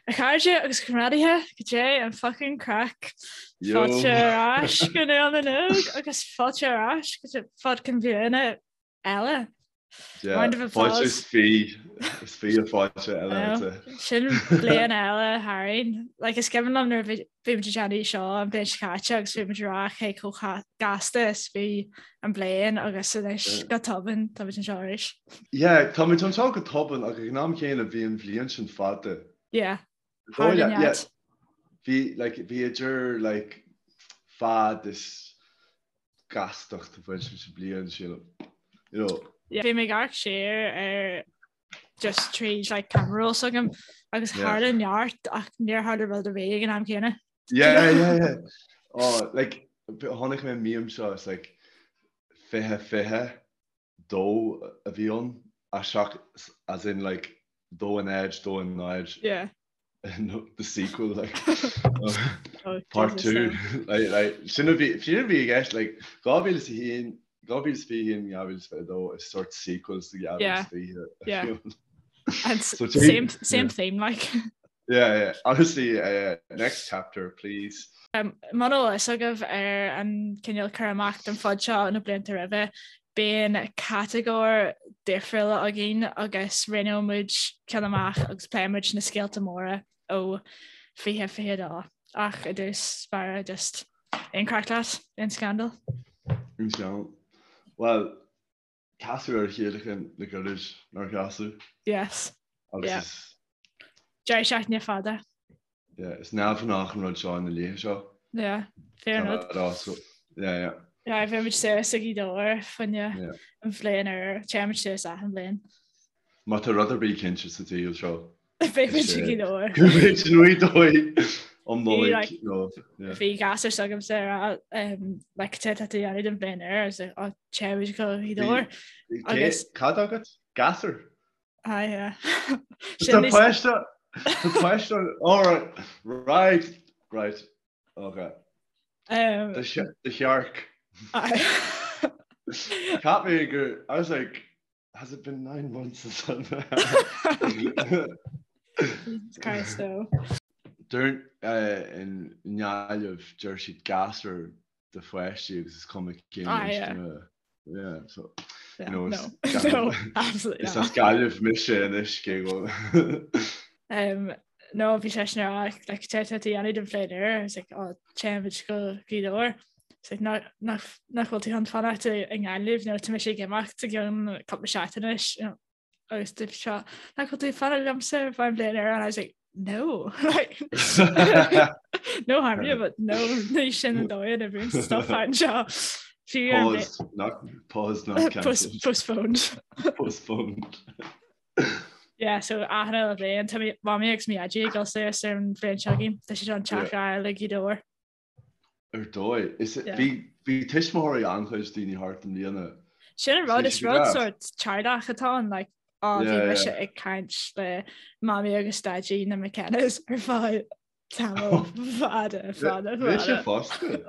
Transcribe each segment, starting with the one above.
A chairde agus comrádaithe, goidé an fucking craic. Fáilte ar ais go Nuacht na nÓg agus fáilte ar ais go Fodcan Bliana eile. Round of applause. Fáilte is fi, is fi a fáilte eile. Sin bliain eile tharainn. Like, is cuimhin liom nuair a bhí muid ag déanamh seo an bhliain seo caite agus bhí muid ag rá cé chomh gasta is bhí an bliain agus anois go tobann tá muid anseo arís. Yeah, tá muid anseo go tobann ach ag an am chéanna bhí an bhliain sin fada. Yeah. Thar yeah, yeah. Bhí like bhí idir like fad is gastacht ag baint leis an bliain sílim. You know. Yeah. Bhí mé ag amharc siar ar just tríd like camera roll s'agam agus tharla neart ach níor tharla rud ar bith ag an am céanna. Yeah, yeah, yeah. Oh, like chonaic mé meme seo it's like 20 22 a bhí ann, a seach as in like dó a náid, dó a náid. Yeah. No, the sequel like oh, part 2 like, like, sin a bhí sin a bhí i gceist like 2001 2021 2022 is sort sequels to 2020 yeah. And so same same yeah. theme like Yeah, yeah. Honestly, uh, next chapter, please. Um, Muna bhfuil fhios agaibh ar an cineál cur amach den phod seo na blianta roimhe, bíonn catagóir difriúla againn agus roghnóidh muid ceann amach agus pléifidh muid na scéalta móra ó 2022. Ach i dtús báire just aon craic leat, aon scandal? Aon scandal. Well, Casadh ar a chéile chun le gairid nár chasadh. Yes. Agus yeah. is... Deireadh seachtaine fada. Yeah, is neamhghnách an rud seo na laethe seo. Yeah, fair enough. So, yeah, yeah. Yeah, bhí muid suas ag Gaoth Dobhair fá choinne an bhliain úr, téann muid suas achan bhliain. Má tá rud ar bith cinnte sa tsaol seo. Beidh muid i Gaoth Dobhair. Beidh muid i nGaoth Dobhair um Nollaig. Bhí gasúr s'agamsa ag rá like cad tá tú a dhéanamh don bhliain úr agus á téann muid go Gaoth Dobhair. Agus Cad agat? Gasúr? Ah yeah. Tá páiste Tá páiste all right right right okay. Um, The shark. Cheap mé gur I was like Has it been 9 months since Jesus Christ no. Deir i nGaillimh deir siad gasúr do pháistí agus is cuma cén ah, inscne. Yeah, so yeah, you know, no. no, absolutely Is as Gaillimh mise anois cé go. Um, no, bhí sé sin ar like, cad tá tú a dhéanamh don bhliain úr, I was like, oh, téann muid go Gaoth Dobhair. Nach bhfuil tú chun fanacht i nGaillimh nó tá mise ag imeacht i gceann cúpla seachtain anois agus dúirt sé nach bhfuil tú ag fanacht liomsa ar feadh an bhliain úr and I was like no like no harm you but no ní sin an dóigh a n-oibríonn stuff anseo. Pause, not pause, not cancelled. Postponed. Postponed. Yeah, so achan uile bhliain tá mamaí agus mo dhaidí ag dul suas ar an bhliain seo chugainn tá siad chun teach a fháil i Gaoth Dobhair. Ar dóigh. Is bhí bhí tuismitheoirí an-chuid daoine thart i mbliana. Sin an rud, is rud sort teaghlach atá ann, like, á bhí mise ag caint le mamaí agus daidí na McKennas ar feadh tamall fada, fada, fada. Mise fosta.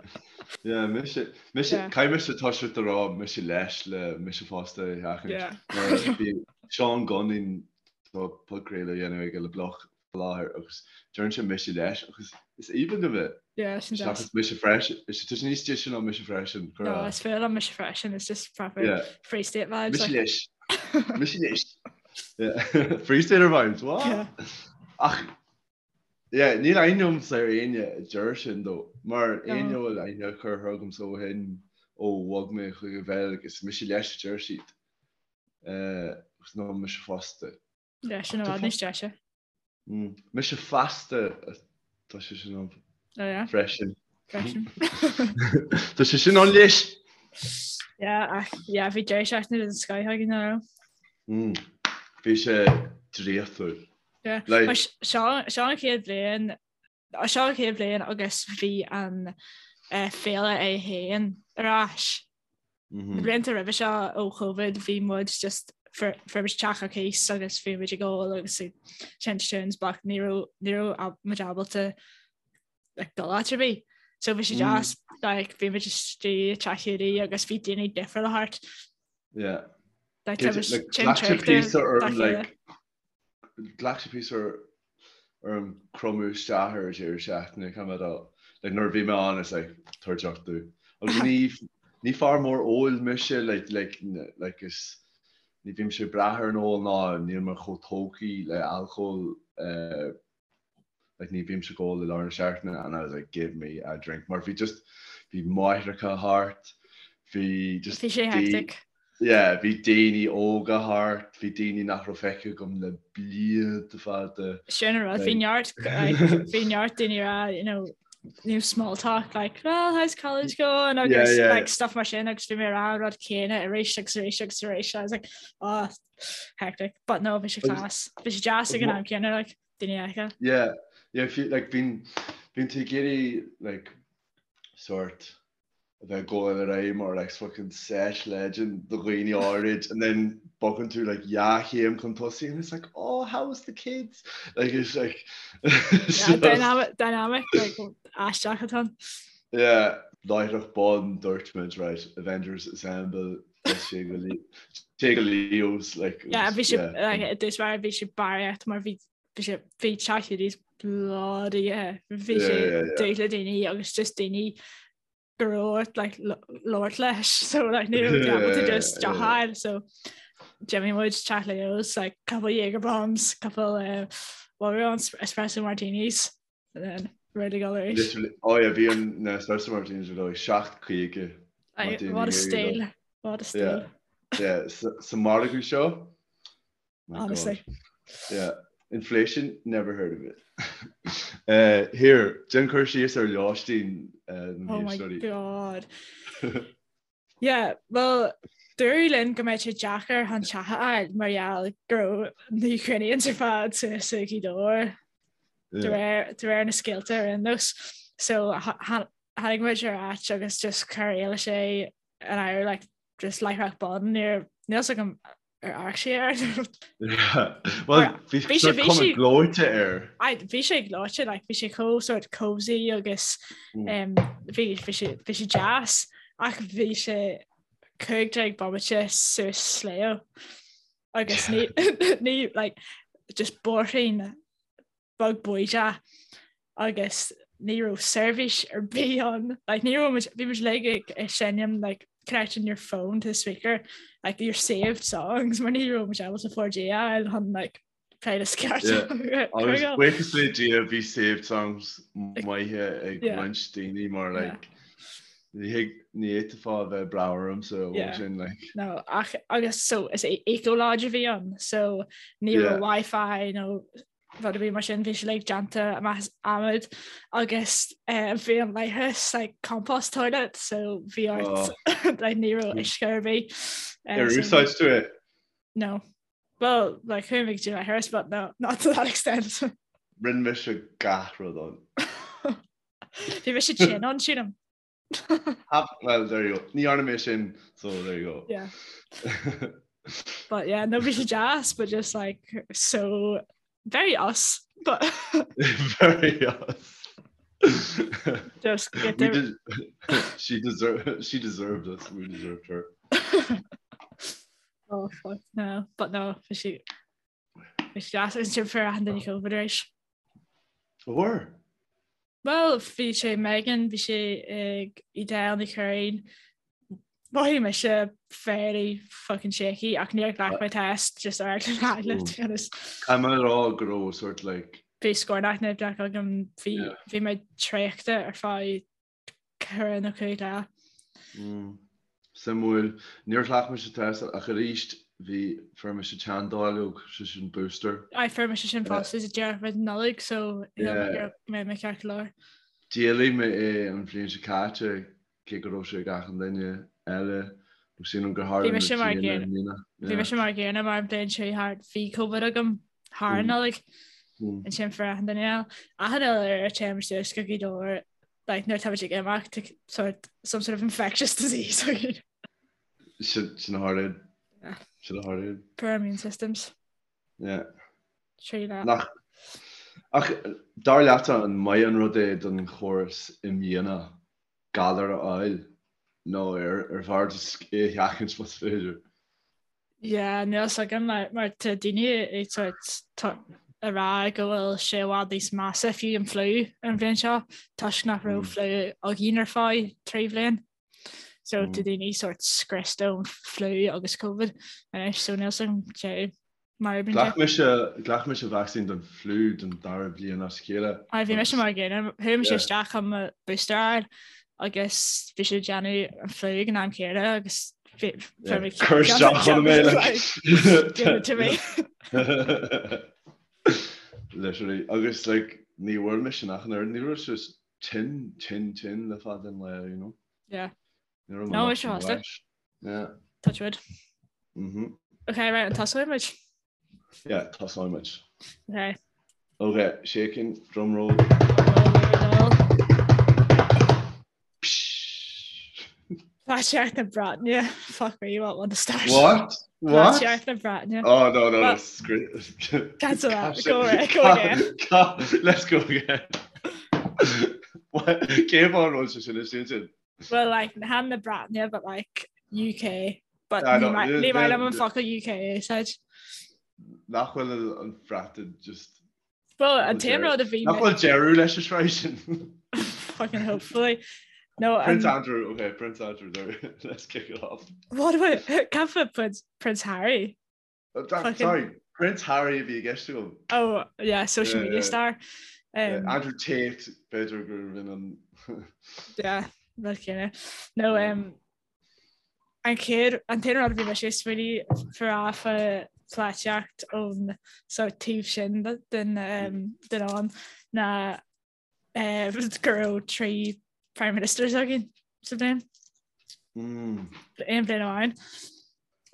Yeah, mise, mise, caithfidh mise toiseacht a rá mise leis le mise fosta a sheachaint. Mar bhí Seán Gunning tá podchraoladh a dhéanamh aige le Bloch faoi láthair agus deireann sé mise leis agus is aoibhinn liom é. Yeah, sin deas. Seachas mise freisin. Is tá sé níos deise ná mise freisin. Go No, is fearr liom mise freisin, it's just proper Yeah. Free State vibes. Mise leis. Mise leis. Yeah. Free Stater vibes, what? Yeah. Ach yeah, níl aithne agamsa ar éinne a deir sin dó, mar No. éinne a bhfuil aithne curtha agamsa ó shin ó bhog mé chuig an Bheilg, is mise leis a deir siad. Eh, agus nó mise fosta. Yeah, sin i bhfad níos deise. Mise feasta tá sé sin ann Oh yeah. freisin. Freisin. Tá sé sin ann leis. Yeah, ach yeah, bhí deireadh seachtaine den scoth againn nach raibh. Mm. Bhí sé draíochtúil. Yeah. Like- Mar seo seo an chéad bhliain seo an chéad bhliain agus bhí an eh, féile é féin ar ais. Na blianta roimhe seo ó Covid bhí muid just fuair muid teach ar cíos agus bhí muid ag ól agus ag seinnt tunes but ní raibh ní raibh muid ábalta like dul áit ar bith. So bhí sé deas like bhí muid istigh i teach Hiúdaí agus bhí daoine difriúla thart. Yeah. Like tá muid tinn traochta dá chéile. Ghlac sé píosa. orm cromadh isteach ar deireadh seachtaine, caithfidh mé a rá. Like nuair a bhí mé ann, it's like, tabhair deoch domh. Agus ní, ní fear mór óil mise, like, like, like is, ní bhímse ag brath ar an ól ná níl mé chomh tógtha le alcól, eh, like ní bhímse ag ól i lár na seachtaine and I was like, give me a drink. Mar bhí just, bhí máithreacha thart, bhí just Bhí sé hectic. Yeah, bhí daoine óga thart, bhí daoine nach raibh feicthe agam le blianta fada. Sin an rud, bhí neart, like, bhí neart daoine ag rá, you know, new small talk, like, well, how's college going? Agus, yeah, yeah. like, stuff mar sin, agus bhí mé ag rá an rud céanna arís agus arís agus arís. I was like, oh, hectic. But no, bhí sé class. Bhí sé deas ag an am céanna, like, daoine a fheiceáil. Yeah, yeah, if you, like, bíonn, bíonn tú ag iarraidh, like, sort, a bheith ag gabháil ar aghaidh mar like fucking sesh legend do dhaoine áirid and then bogann tú like dhá chéim chun tosaigh and it's like oh how was the kids like it's like yeah, dynamic dynamic like aisteach atá ann. Yeah láithreach bonn dúirt muid right Avengers Assemble sé go sé go Leo's like Yeah bhí sé like i dtús báire bhí sé barraíocht mar bhí bhí sé bhí teach Leo's bloody bhí sé dúth le daoine agus just daoine go raibh like labhairt leis so like ní raibh able to just deoch a fháil so d'imigh muid teach Leo's like couple Jaeger bombs couple uh, what were on espresso martinis and then ready to go arís. Literally oh yeah bhí an na espresso martinis ar dóigh 7.50 What a steal what a steal. Yeah yeah sa margadh seo My Honestly. God. Yeah. Inflation, never heard of it. Uh, here, déan cur síos ar lóistín uh, oh my God. yeah, well, dúradh linn go mbeadh sé deacair chun teach a fháil mar gheall go raibh na Ukrainians ar fad suas i Gaoth Dobhair de réir na scéalta ar aon nós. So tháinig muid ar áit agus just chuir Éilis é in áirithe like, just láithreach bonn níor níl a fhios agam ar amharc sé air. Well, bhí sé cuma gleoite air. Bhí sé gleoite, like, bhí sé chomh sort cozy agus mm. um, bhí sé bhí sé deas ach bhí sé 15 bomaite suas sliabh agus ní ní like, just bóithrín beag bídeach agus ní raibh seirbhís ar bith ann. Like, ní raibh muid, bhí muid like ag ag seinm like, connecting your phone to the speaker, like your saved songs, mar ní raibh muid ábalta 4G a fháil chun like, playlist ceart Yeah. Agus buíochas le Dia bhí saved songs maithe ag Yeah. roinnt daoine mar Yeah. like ní thig ní fhéadfá a bheith breá ormsa ó Yeah. sin like. No, ach agus so is é eco lodge a bhí ann, so ní Yeah. raibh Wi-Fi nó rud ar bith mar sin, bhí sé like déanta amach as adhmad agus bhí an leithreas like compost toilet so bhí ort like ní raibh uisce ar bith. Ar úsáid tú é? No. Well, like chuaigh mé go dtí an leithreas but no, not to that extent. Rinne mise gach rud ann. Bhí mise tinn ann, sílim. Well, there you go. Ní dhearna mé sin, so there you go. Yeah. But yeah, no bhí sé deas, but just like so very us, but very us. Just get We there. did, she deserved she deserved us. We deserved her. Oh fuck no, but no, bhí sé bhí sé deas agus ansin fuair achan duine COVID arís. Bhfuair? Bhuel, bhí sé Megan, bhí sé ag Edel Ní Churraoin. Mhothaigh mise fairly fucking shaky ach níor ghlac mé test just ar eagla na heagla, to be honest. Caithfidh mé a rá go raibh sort like. Bhí scornach nimhneach agam, bhí bhí mé traochta ar feadh 4 nó 5 lá. Suimiúil. Níor ghlac mise test ach arís bhí fuair mise teanndáileog, sé sin booster. Aye, fuair mise sin fosta sa deireadh roimh an Nollaig so shíl mé go mbeidh mé ceart go leor. D'éiligh mé é an bhliain seo caite cé go raibh sé ag achan duine eile nó sílim gur tharla Bhí mise mar gcéanna. Bhí mise mar gcéanna mar an bhliain seo thart bhí Covid agam thar an Nollaig. Ansin fuair achan duine eile. Achan uile uair a téim suas go Gaoth Dobhair like nuair atá muid ag imeacht sort some sort of infectious disease againn. Sin a tharlaíonn. Sin a tharlaíonn. Poor immune systems. Yeah. Trí leat. Nach Ach dar leatsa an maith an rud é don chóras imdhíonach galar a fháil nó ar ar bhfearr just é a sheachaint más féidir? Yeah, níl a fhios agam mar tá daoine ag sort. ag rá go bhfuil sé i bhfad níos measa fiú an fliú an bhliain seo toisc nach raibh fliú againn ar feadh 3 bhliain. So tá daoine sort scriosta ón fliú agus Covid anois so níl a fhios agam cé mar a bhíonn sé. Ghlac mise ghlac mise vacsaín don fliú don dara bliain as a chéile. Aye bhí mise mar an gcéanna, chuaigh mise isteach chun mo booster a fháil agus bhí siad ag déanamh an fliú ag an am céanna agus bhí mé Cuir isteach chun mé like. Give it to me. Literally agus like ní bhfuair mise ach an oiread ní raibh sé tinn tinn tinn le fada an lá you know. Yeah. Ní raibh mé No, is fosta. Yeah. Touch wood. Mhm. Okay, right, an tosóidh muid? Yeah, tosóidh muid. Okay. Okay, shaking, drum roll. Polaitíocht na Breataine. Fuck me, what one to start? What? What? Polaitíocht na Breataine. Oh, no, no, no. Cancel that. Go away, go again. Let's go again. Cé fáth an bhfuil sé sin is sin? Well, like, chan na Breataine, but like, UK. But ní maith liom an focal UK a úsáid. Nach bhfuil an Bhreatain just... Well, an t-aon rud a bhí... Nach bhfuil deireadh leis an sraith sin? Fucking hopefully. No, Prince Andrew, okay, Prince Andrew, there. Let's kick it off. What about, cad faoi Prince, Prince Harry? Uh, sorry, Prince Harry a bhí i gceist agam. Oh, yeah, social media star. Um, Andrew Tate, b'fhéidir gur bhí an... Yeah, rud céanna. No, um, an chéad, an t-aon rud a bhí mise ag smaoineamh fá pholaitíocht ón sort taobh sin den, um, den abhainn ná go raibh 3 Prime Ministers againn sa bhliain. Mm. Aon bhliain amháin.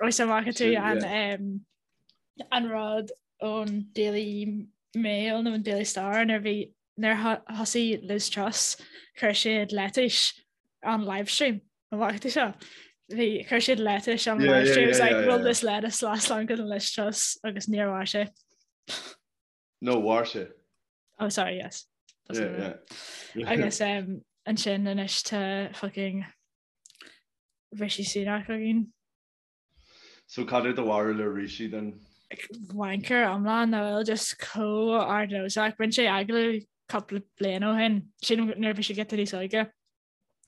Agus an bhfaca tú an, um, an rud ón Daily Mail nó an Daily Star nuair bhí nuair thosaigh Liz Truss chuir siad lettuce on livestream. An bhfaca tú seo? Bhí chuir siad lettuce on yeah, livestream. Yeah, yeah, It was like, yeah, will yeah. this lettuce last longer than Liz Truss? Agus níor mhair sé. No, mhair sé. Oh, sorry, yes. Yeah, yeah. Agus um, ansin anois tá fucking Rishi Sunak againn. So cad é do bharúil ar Rishi then? Wanker iomlán nach bhfuil just chomh ardnósach. Rinne sé agallamh cúpla bliain ó shin, sin nuair a bhí sé giota níos óige.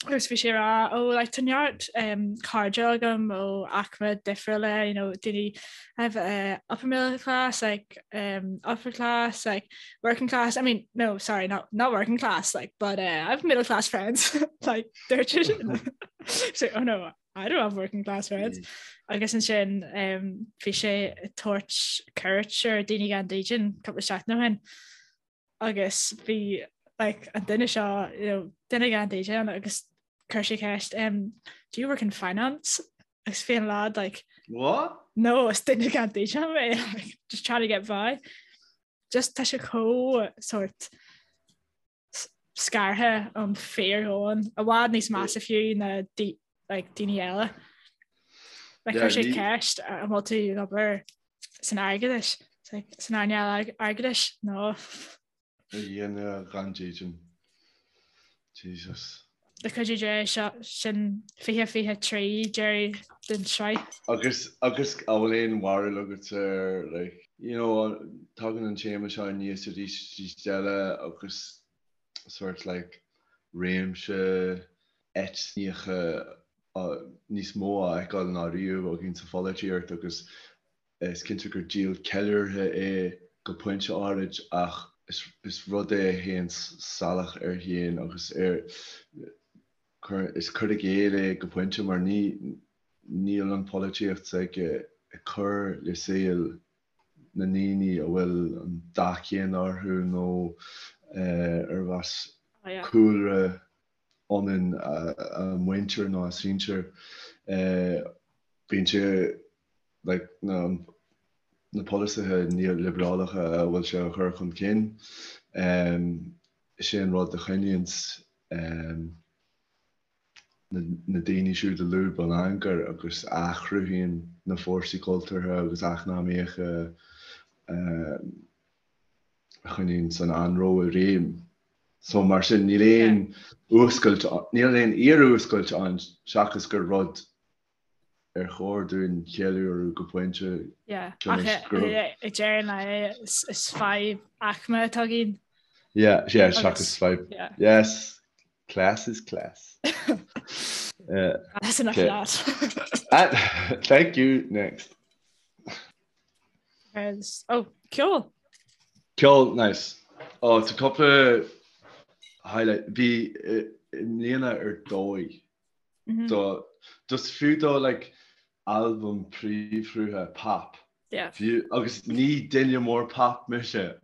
Agus bhí sé ag rá oh like tá neart um, cairde agam ó aicme difriúla, you know, daoine have uh, upper middle class, like um, upper class, like working class. I mean, no, sorry, not not working class, like, but uh, I have middle class friends, like they're just so oh no, I don't have working class friends. Mm. Agus ansin um, bhí sé ag tabhairt cuairt ar daoine gan dídean cúpla seachtain ó shin. agus bhí like, an duine seo you know, duine gan dídean agus chuir sé ceist um, do you work in finance? Agus bhí an lad like What? No, is duine gan dídean mé like, just trying to get by. Just tá sé chomh sort scartha ón fíordhomhan i bhfad níos measa fiú ná like, daoine eile. Like, chuir sé ceist an bhfuil tú ag obair san airgeadais, san earnáil airgeadais, no. A dhuine gan dídean. Jesus. Le cuidiú Dé seo sin 2023 deireadh den tsraith. Agus agus an bhfuil aon bharúil agat ar like you know tagann an téama seo aníos arís arís eile agus sort like réimse eitneacha níos mó á fheiceáil ná riamh againn sa pholaitíocht agus is cinnte gur díol ceiliúrtha é go pointe áirid ach is rud é a théann salach air féin agus ar is cur i gcéill é go pointe mar ní níl an pholaitíocht s'aige ag cur le saol na ndaoine a bhfuil an dath céanna orthu nó arb as cúlra ionann a muintir nó a sinsir. Bíonn sé like na na polasaithe neoliobrálach a bhfuil sé a chur chun cinn. Is é an rud a choinníonns na daoine siúd i lúb an ancair agus a chruthaíonn na fórsaí cultúrtha agus eacnamaíocha a choinníonns an anró i réim. So mar sin níl aon fhuascailt, níl aon fhíorfhuascailt ann seachas gur rud. Ar chóir dúinn ceiliúradh go pointe Yeah, ach ag deireadh an lae is fadhb aicme atá againn. Yeah, yeah, seachas fadhb. Yes, class is class. That's enough of that. Thank you, next. Oh, ceol! Ceol, nice. Oh, tá cúpla highlight. Bhí i mbliana ar dóigh. Do just fiú do like albam príomhshrutha pop. Yeah. Fiú agus ní duine mór pop mise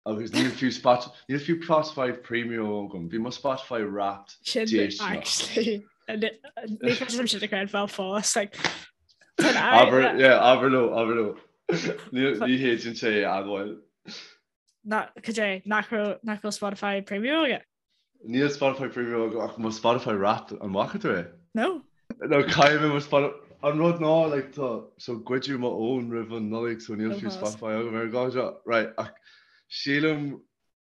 agus níl fiú Spot níl fiú Spotify Premium agam. Bhí mo Spotify Wrapped Sin déisteanach. actually ní féidir liom sin a chreidbheáil fós like Abair yeah abair leo abair leo. Ní ní fhéadfainn sé a admháil. Na cad é nach raibh nach bhfuil Spotify Premium agat? Níl Spotify Premium agam ach mo Spotify Wrapped, an bhfaca tú é? No. No, caithfidh mé mo Spotify, an rud ná like tá, so goideadh mo fhón roimh an Nollaig so níl fiú Spotify agam ar an gcás seo. Right, ach sílim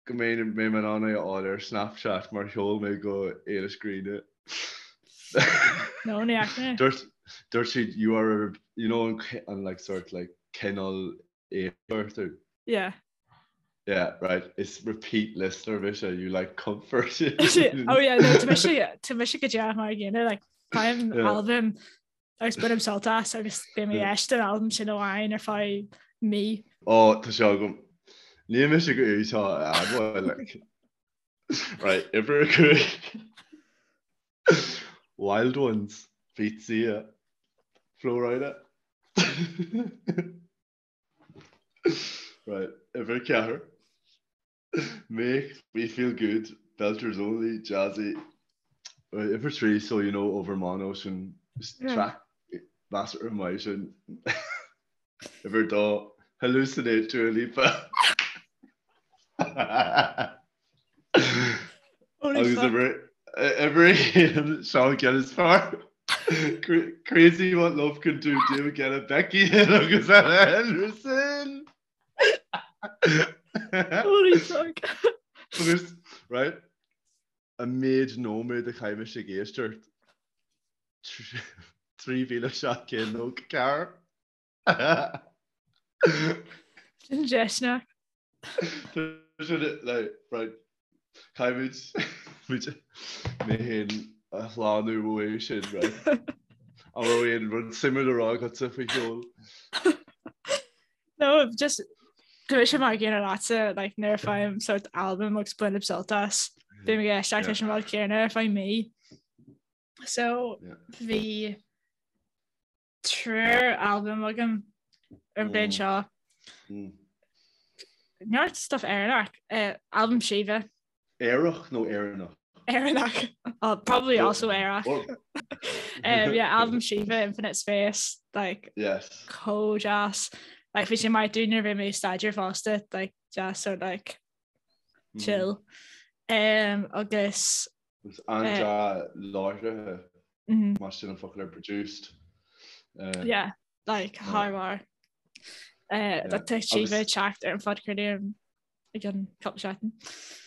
go mbeidh mé in ann é a fháil ar Snapchat mar sheol mé go Éilis Greene. No, ní fhaca mé. Dúirt, dúirt siad you are a, you know an, an like sort like cineál éifeachtú. Yeah. Yeah, right, is repeat listener mise, you like comfort. Oh yeah, no, tá mise tá mise go díreach mar an gcéanna, like, faighim Yeah. albam agus bainim sult as agus beidh mé ag éisteacht an albam sin amháin ar feadh mí. Ó, tá sé agam. Níl mise ag iarraidh seo a admháil, like. Right, uimhir a 5. Wild Ones, feat Sia, Flo Rida. Right, uimhir 4. Make me feel good, Belters Only, Jazzy. Right, uimhir 3, So You Know Overmono, sin track measartha maith sin. Uimhir 2, Hallucinate, Dua Lipa. Holy Agus fuck. uimhir 1, Sean ceann is fearr. Crazy what love can do, David Guetta, Becky Hill agus Ella Henderson. Holy fuck. Agus, right, an méid nóiméad a chaith mise ag éisteacht, 3,794. Sin deiseanna. Right, caithfimid muid mé féin a shlánú uaidh sin, right? An raibh aon rud suimiúil le rá agatsa faoi cheol? No, just tá mise mar an gcéanna leatsa, like, nuair a faighim sort album agus bainim sult as, bím ag éisteacht leis an rud céanna ar feadh mí. So, bhí triúr albam agam ar an bhliain seo. Neart stuff Éireannach. Albam Síomha. Aerach nó Éireannach? Éireannach. Oh, probably also aerach. Um, yeah, albam Síomha, Infinite Space, like, yes. chomh deas. Like, bhí sé maith dúinn nuair a bhí mé ag staidéar fosta, like, deas sort like, chill. Um, agus Agus an-dea-láithrithe, más sin an focal ar produced. Yeah, like thar barr. Tá Síomha ag teacht ar an phodchraoladh i gceann cúpla seachtain.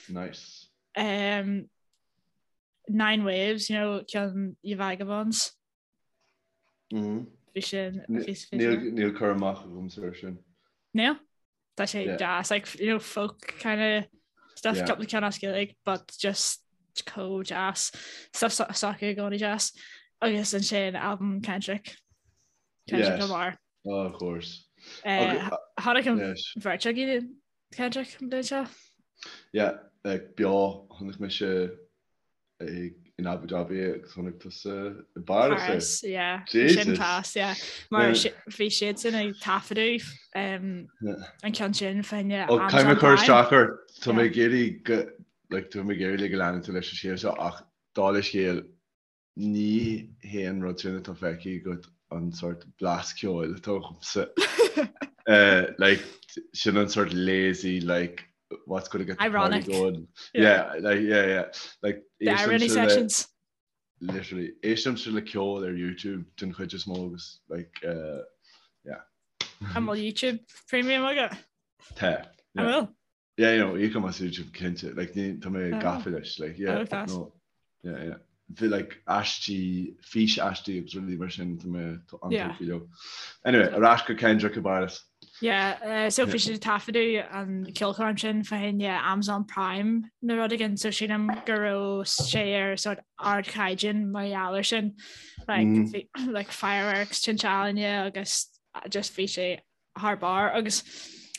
Nice. Um, Nine Waves, you know, ceann Ye Vagabonds. Bhí sin Níl cur amach agamsa ar sin. Níl? Tá sé deas, like, you know, folk kind of stuff, yeah. cúpla ceann as Gaeilge, but just chomh deas. Stuff s'acu i gcónaí deas. Agus ansin album Kendrick. Kendrick yes. Lamar. Oh, of course. Uh, Chonaic an bheirt againn Kendrick an bhliain seo? Yeah, like, beo, chonaic mise in Abu Dhabi agus chonaic tusa i bPáras é. Paris, yeah. Jesus. Sin class, yeah. Mar bhí siadsan ag taifeadadh um, an ceann sin fá choinne Ó caithfidh mé cur isteach ort, tá mé ag iarraidh go like, tá mé ag iarraidh go leanann tú leis an scéal seo ach dála scéil ní hé an rud sin atá feicthe agat an sort blas ceoil atá agamsa. Uh, like, sin an sort lazy like what's going to get the party Ironic. going. Yeah, like, yeah, yeah. Like, The irony sessions. Literally, éistimse le ceol ar YouTube den chuid is mó agus like, uh, yeah. An bhfuil YouTube Premium agat? Tá. An bhfuil? Yeah, you know, íocaim as YouTube cinnte. Like, ní, tá mé gafa leis, like, yeah. Oh, class. No, yeah, yeah. Bhí like aistí, fís aistí agus rudaí mar sin tá mé an-tógtha leo. Anyway, ar ais go Kendrick i bPáras. Yeah, uh, so bhí siad ag taifeadadh an ceolchoirm sin fá choinne Amazon Prime nó rud éigin, so sílim go raibh sé ar sort ardchaighdeán mar gheall ar sin. Like, mm. bhí, like fireworks, tinte ealaíne agus just bhí sé thar barr agus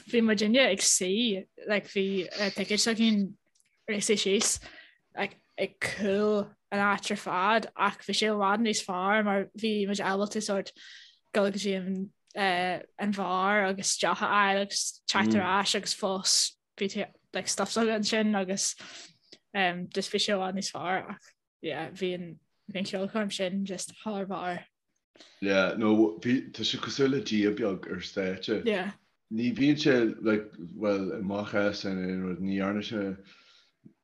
bhí muidinne ag suí like bhí uh, ticéid againn ag suí síos like, ag cúl an áit ar fad ach bhí sé i bhfad níos fearr mar bhí muid ábalta sort dul go dtí an, uh, an bheár agus deoch a fháil agus teacht ar mm. ais agus fós bhí like, stuff s'againn ansin agus um, just bhí sé i bhfad níos fearr ach yeah, bhí an bhí an ceolchoirm sin just thar barr. Yeah, no, bhí, tá sé cosúil le Dia beag ar stáitse. Yeah. Ní bhíonn sé, like, well, i mo chás in aon rud, ní dhearna sé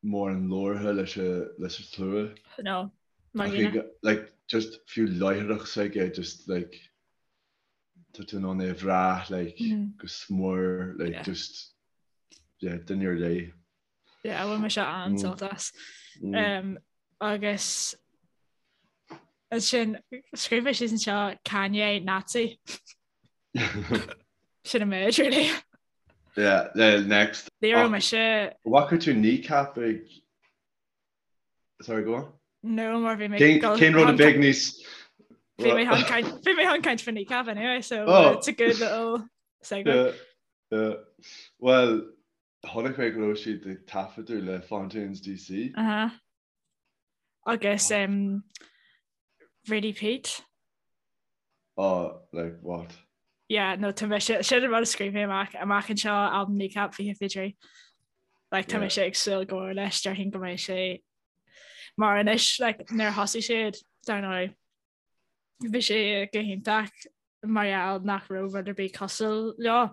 mórán labhartha leis a, leis an tslua. No, mar Ach ag, like, just fiú láithreacht s'aige, just, like, tá tú in ann é a bhrath, like, mm. go smior, like, yeah. just, yeah, duine ar leith. Yeah, bhain mise an-sult as. Um, agus ansin scríobh mé síos anseo Kanye Nazi. Sin an méid really. Yeah, uh, next. Ní raibh mise. Bhfaca tú Kneecap ag Sorry, go on. No, mar bhí mé Cén rud a bheidh níos Bhí mé chun caint bhí mé chun caint faoi Kneecap anyway, so oh. it's a good little segue. Yeah, yeah. Well, Chonaic mé go raibh siad ag taifeadadh le Fontaines DC. Uh-huh. Agus um, Radie Peat. Oh, like what? Yeah, no, tá mise, sin an rud a scríobh mé amach, amach anseo albam Kneecap 2023. Like, tá mise ag súil go mór leis, déarfainn go mbeidh sé mar anois, like, nuair a thosaigh siad, dar ndóigh, Bhí sé go hiontach mar gheall nach raibh rud ar bith cosúil leo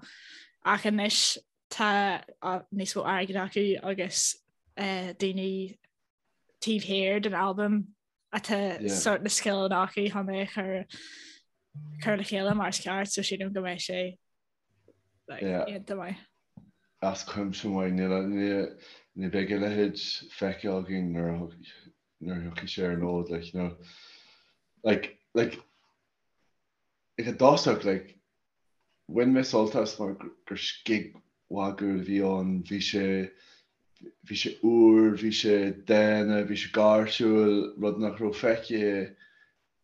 ach anois tá níos mó airgid acu agus daoine taobh thiar den albam atá sort na scileanna acu chun é a chur chur le chéile mar is ceart so sílim go mbeidh sé like, iontach maith. As cuimse maith, ní bheidh a leithéid feicthe againn nuair a nuair a thiocfaidh sé ar an fhód, like, you know, like, like, ag an dtosach, like, bhain mé sult as mar gur scig mhagúil a bhí ann, bhí sé, bhí sé úr, bhí sé dána, bhí sé gáirsiúil, rud nach raibh feicthe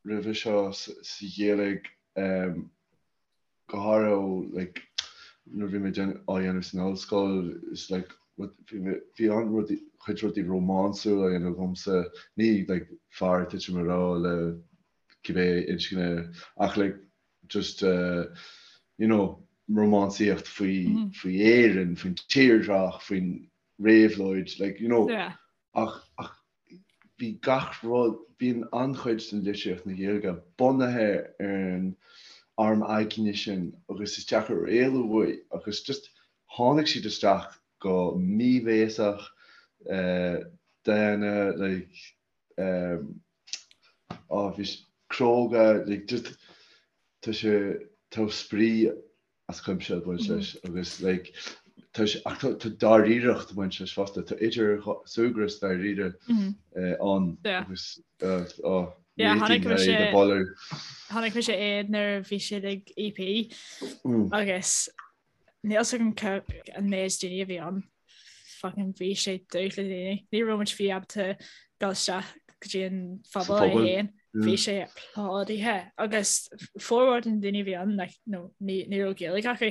roimhe seo sa Ghaeilge, um, go háirithe ó like nuair a bhí mé á dhéanamh san ollscoil is like bhí mé bhí an rudaí chuid rudaí rómánsúil á dhéanamh agamsa ní like fear ag titim i ngrá le cibé inscne ach like just uh, you know rómánsaíocht faoi mm -hmm. faoi Éirinn faoin tírdhreach faoin réabhlóid like you know yeah. ach ach bhí gach rud, bíonn an-chuid den litríocht na Gaeilge bunaithe ar an arm aigne sin agus is deacair éalú uaidh agus just tháinig siad isteach go míbhéasach, dána, like, á bhí cróga, like just tá sé, tá spraoi as cuimse ag baint leis agus like tá sé ach tá dáiríreacht ag baint leis fosta, tá idir súgradh is dáiríre ann agus oh réitigh mé iad a mholadh. Chonaic mise iad nuair a bhí siad ag EP agus níl 'fhios agam an méid daoine a bhí ann. Fucking bhí sé dubh le daoine. Ní raibh muid fiú ábalta dul isteach go dtí an phuball é féin. Bhí sé plódaithe agus formhór de na daoine a bhí ann like, no, ní, ní raibh Gaeilge acu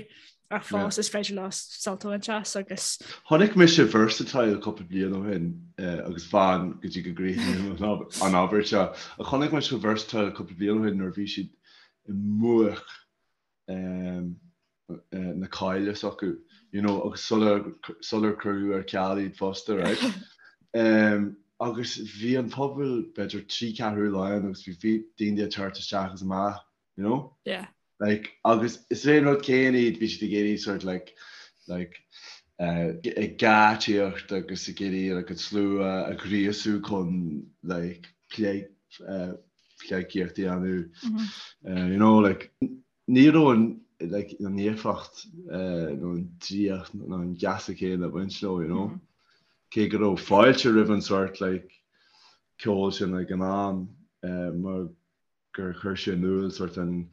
ach fós is féidir leo sult a bhaint as agus. Chonaic mise Versatile cúpla bliain ó shin agus fan go dtí go gcríochnaím an abairt seo. Ach chonaic mise Versatile cúpla bliain ó shin nuair a bhí siad i mbuaic na cáile s'acu, you know, agus sular, sular cuireadh ar ceal iad fosta, right? Um, agus bhí an puball b'fhéidir 3 ceathrú lán agus bhí, bhí daoine ag teacht isteach agus amach, you know? Yeah. Like, agus is é an rud céanna iad, bhí siad ag iarraidh sort like, like, uh, ag geáitsíocht agus ag iarraidh like, an slua a ghríosú chun like, plé, uh, pleidhcíocht a dhéanamh, mm -hmm. uh, you know, like, Ní raibh an like an éifeacht nó an draíocht nó an geasa céanna ag baint leo, you know. Cé go raibh fáilte roimh an sórt like ceol sin ag an am mar gur chuir sé in iúl sort an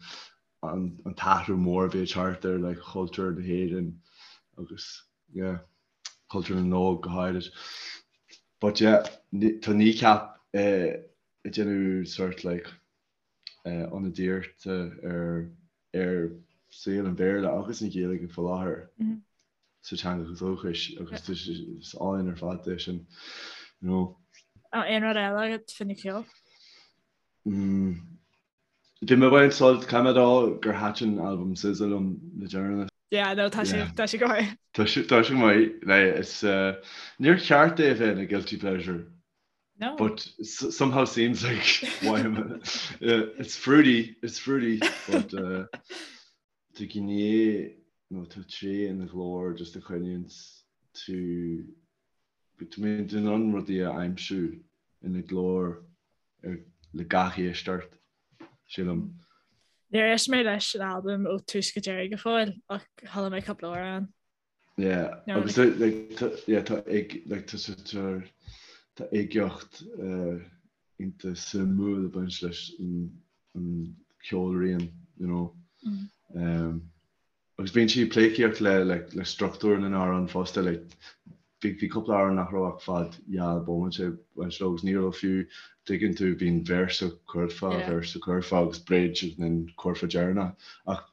an t-athrú mór a bhí ag teacht ar like chultúr na hÉireann agus yeah cultúr na n-óg go háirid. But yeah tá Kneecap ag déanamh sort like ionadaíochta ar ar saol an Bhéarla agus an Ghaeilge faoi láthair sa teanga dhúchais agus is álainn ar fad é sin you know. Aon rud eile agat faoin cheol? Bhí mé ag baint sult, caithfidh mé a rá gur thaitin albam SZA liom le deireanas. Yeah, no, tá sé, tá sé go maith. Tá sé, tá sé go maith. Like, it's, uh, níor cheart é a bheith ina guilty pleasure. No. But somehow seems like why am I, uh, it's fruity, it's fruity, but uh, tá gné nó tá tréith ina ghlór just a choinníonn tú Tá mé in ann rudaí a aimsiú ina glór le gach éisteacht, sílim. Níor éist mé leis an albam ó tús go deireadh go fóill ach chuala mé cúpla amhrán. Yeah, agus like tá yeah tá ig like tá tá tá uigeacht iontach suimiúil ag baint leis an an ceolrian, you know. Um, Agus bíonn sí ag pleidhcíocht le like le struchtúr na n-amhrán fosta like bhí bhí cúpla amhrán nach raibh ach fad dhá bhomaite ag baint leo agus ní raibh fiú tuigeann tú bíonn véarsa curfá Yeah. véarsa curfá agus bridge agus then curfá deireanach ach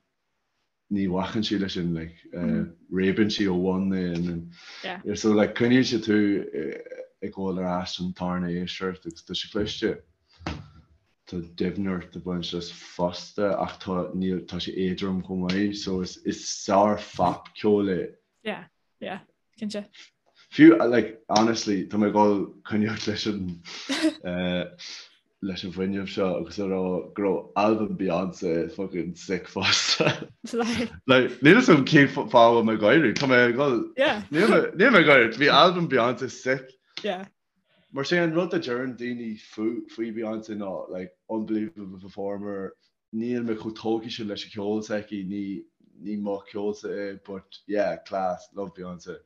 ní bhacann sí leis sin like uh, réabann sí ó bhun é and then Yeah. yeah, so like coinníonn sé tú eh, ag gabháil ar ais an tarna éisteacht agus tá sé cliste. Tá doimhneacht ag baint leis fosta ach tá, níl, tá sé éadrom chomh maith so is, is sár-phopcheol é. Yeah, yeah, cinnte. Fiú, like, honestly, tá mé ag dul coinneáil leis an, eh, leis an bhfuinneamh seo agus a rá go raibh albam Beyonce fucking sick fosta. Like, Like, níl 'fhios agam cén fáth a bhfuil mé ag gáire, tá mé ag dul, yeah. níl mé, níl mé ag gáire, bhí albam Beyonce sick. Yeah. Mar sé an rud a deireann daoine faoi Beyonce ná like unbelievable performer, níl mé chomh tógtha sin leis an cheol s'aici, ní ní mo cheolsa é but yeah class, love Beyonce.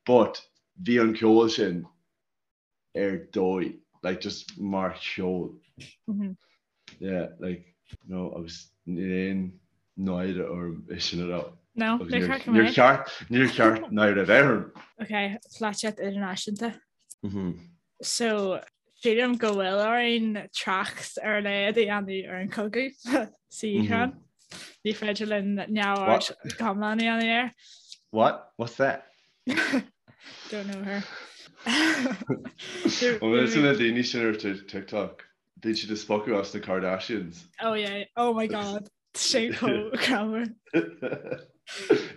But bhí an ceol sin ar dóigh, like just mar cheol. Yeah, like, you know, agus níl aon náire orm é sin a rá. No, Agus níor níor cheart go níor mbeadh. cheart níor cheart náire a bheith orm. Ok, polaitíocht idirnáisiúnta. So, sílim go bhfuil orainn trácht ar a laghad a dhéanamh ar an chogadh sa Úcráin. Ní féidir linn neamhaird go hiomlán a dhéanamh air. What? What's that? Don't know her. Bhfuil na daoine sin ar TikTok? Bíonn siad ag spochadh as na Kardashians. Oh yeah, oh my god. Sé chomh greannmhar.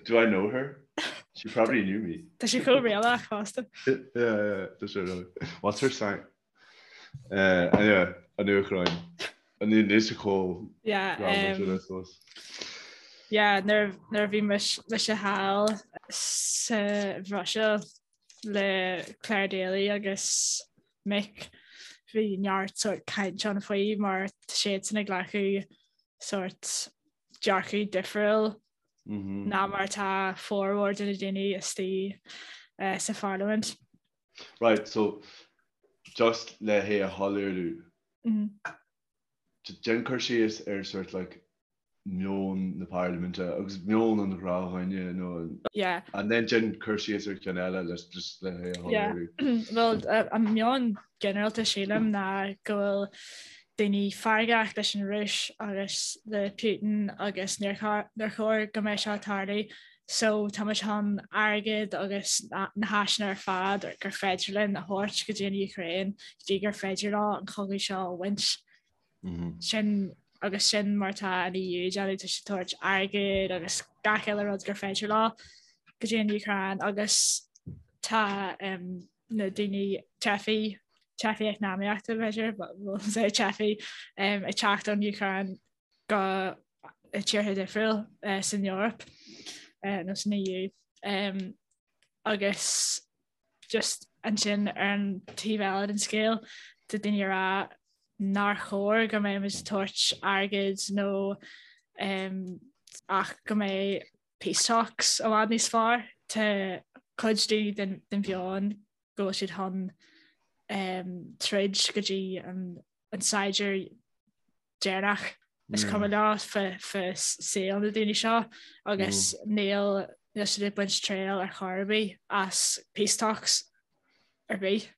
Do I know her? She probably knew me. Tá sé chomh réalach fosta. Yeah, yeah, tá sé really. What's her sign? Uh, anyway, an Úcráin. An ní sé chomh Yeah, um, yeah, nuair nuair a bhí mise thall sa Bhruiséil le Clare Daly agus Mick, bhí neart sort caint ann faoi mar tá siadsan ag glacadh sort dearcadh difriúil ná mar atá formhór de na daoine istigh sa pharlaimint. Right, so just le hé a shoiléiriú, déan cur síos ar sort like meon na parlaiminte agus meon an ghnáthdhuine nó Yeah. and then déan cur síos ar cheann eile le just le hé a Yeah. shoiléiriú. Well, an meon ginearálta sílim ná go bhfuil daoine feargach leis an Rúis agus le Putin agus níor chóir go mbeadh seo ag tarlú so tá muid chun airgead agus na háiseanna ar fad gur féidir linn a thabhairt go dtí an Úcráin go dtí gur féidir leo an cogadh seo a bhaint. Sin agus sin mar tá an EU ag déanamh, tá siad ag tabhairt airgead agus gach uile rud gur féidir leo go dtí an Úcráin agus tá na daoine teifigh, teifigh eacnamaíochta b'fhéidir, we'll say teifigh, ag teacht ón Úcráin go tíortha difriúil san Eoraip nó san EU agus just ansin ar an taobh eile den scéal tá daoine ag rá nár chóir go mbeidh muid ag tabhairt airgid nó um, ach go mbeidh peace talks i bhfad níos fearr. Tá cuid daoine den, den mheon go bhfuil siad chun. Troid go dtí an saighdiúir deireanach. Is cuma leo fá saol na daoine seo agus níl níl siad ag baint triail ar chor ar bith as peace talks ar bith.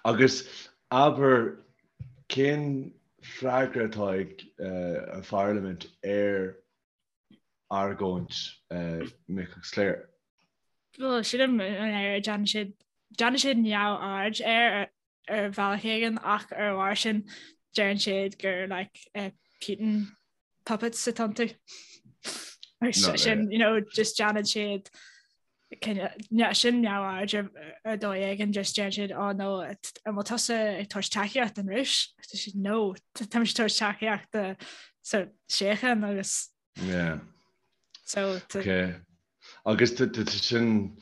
Agus abair, cén freagra atá ag an Pharlaimint ar argóint Mick agus Claire? Bhuel, sílim an air déanann siad déanann siad neamhaird air ar bhealach éigin ach ar a bharr sin deireann siad gur like uh, Putin puppets atá iontu. Sin you know, just déanann siad sin neamhaird ar ar dóigh éigin just deireann siad oh no an bhfuil tusa ag tabhairt tacaíocht don Rúis? Tá siad no tá mise ag tabhairt tacaíocht do so síocháin agus Yeah. So Okay. Agus tá sin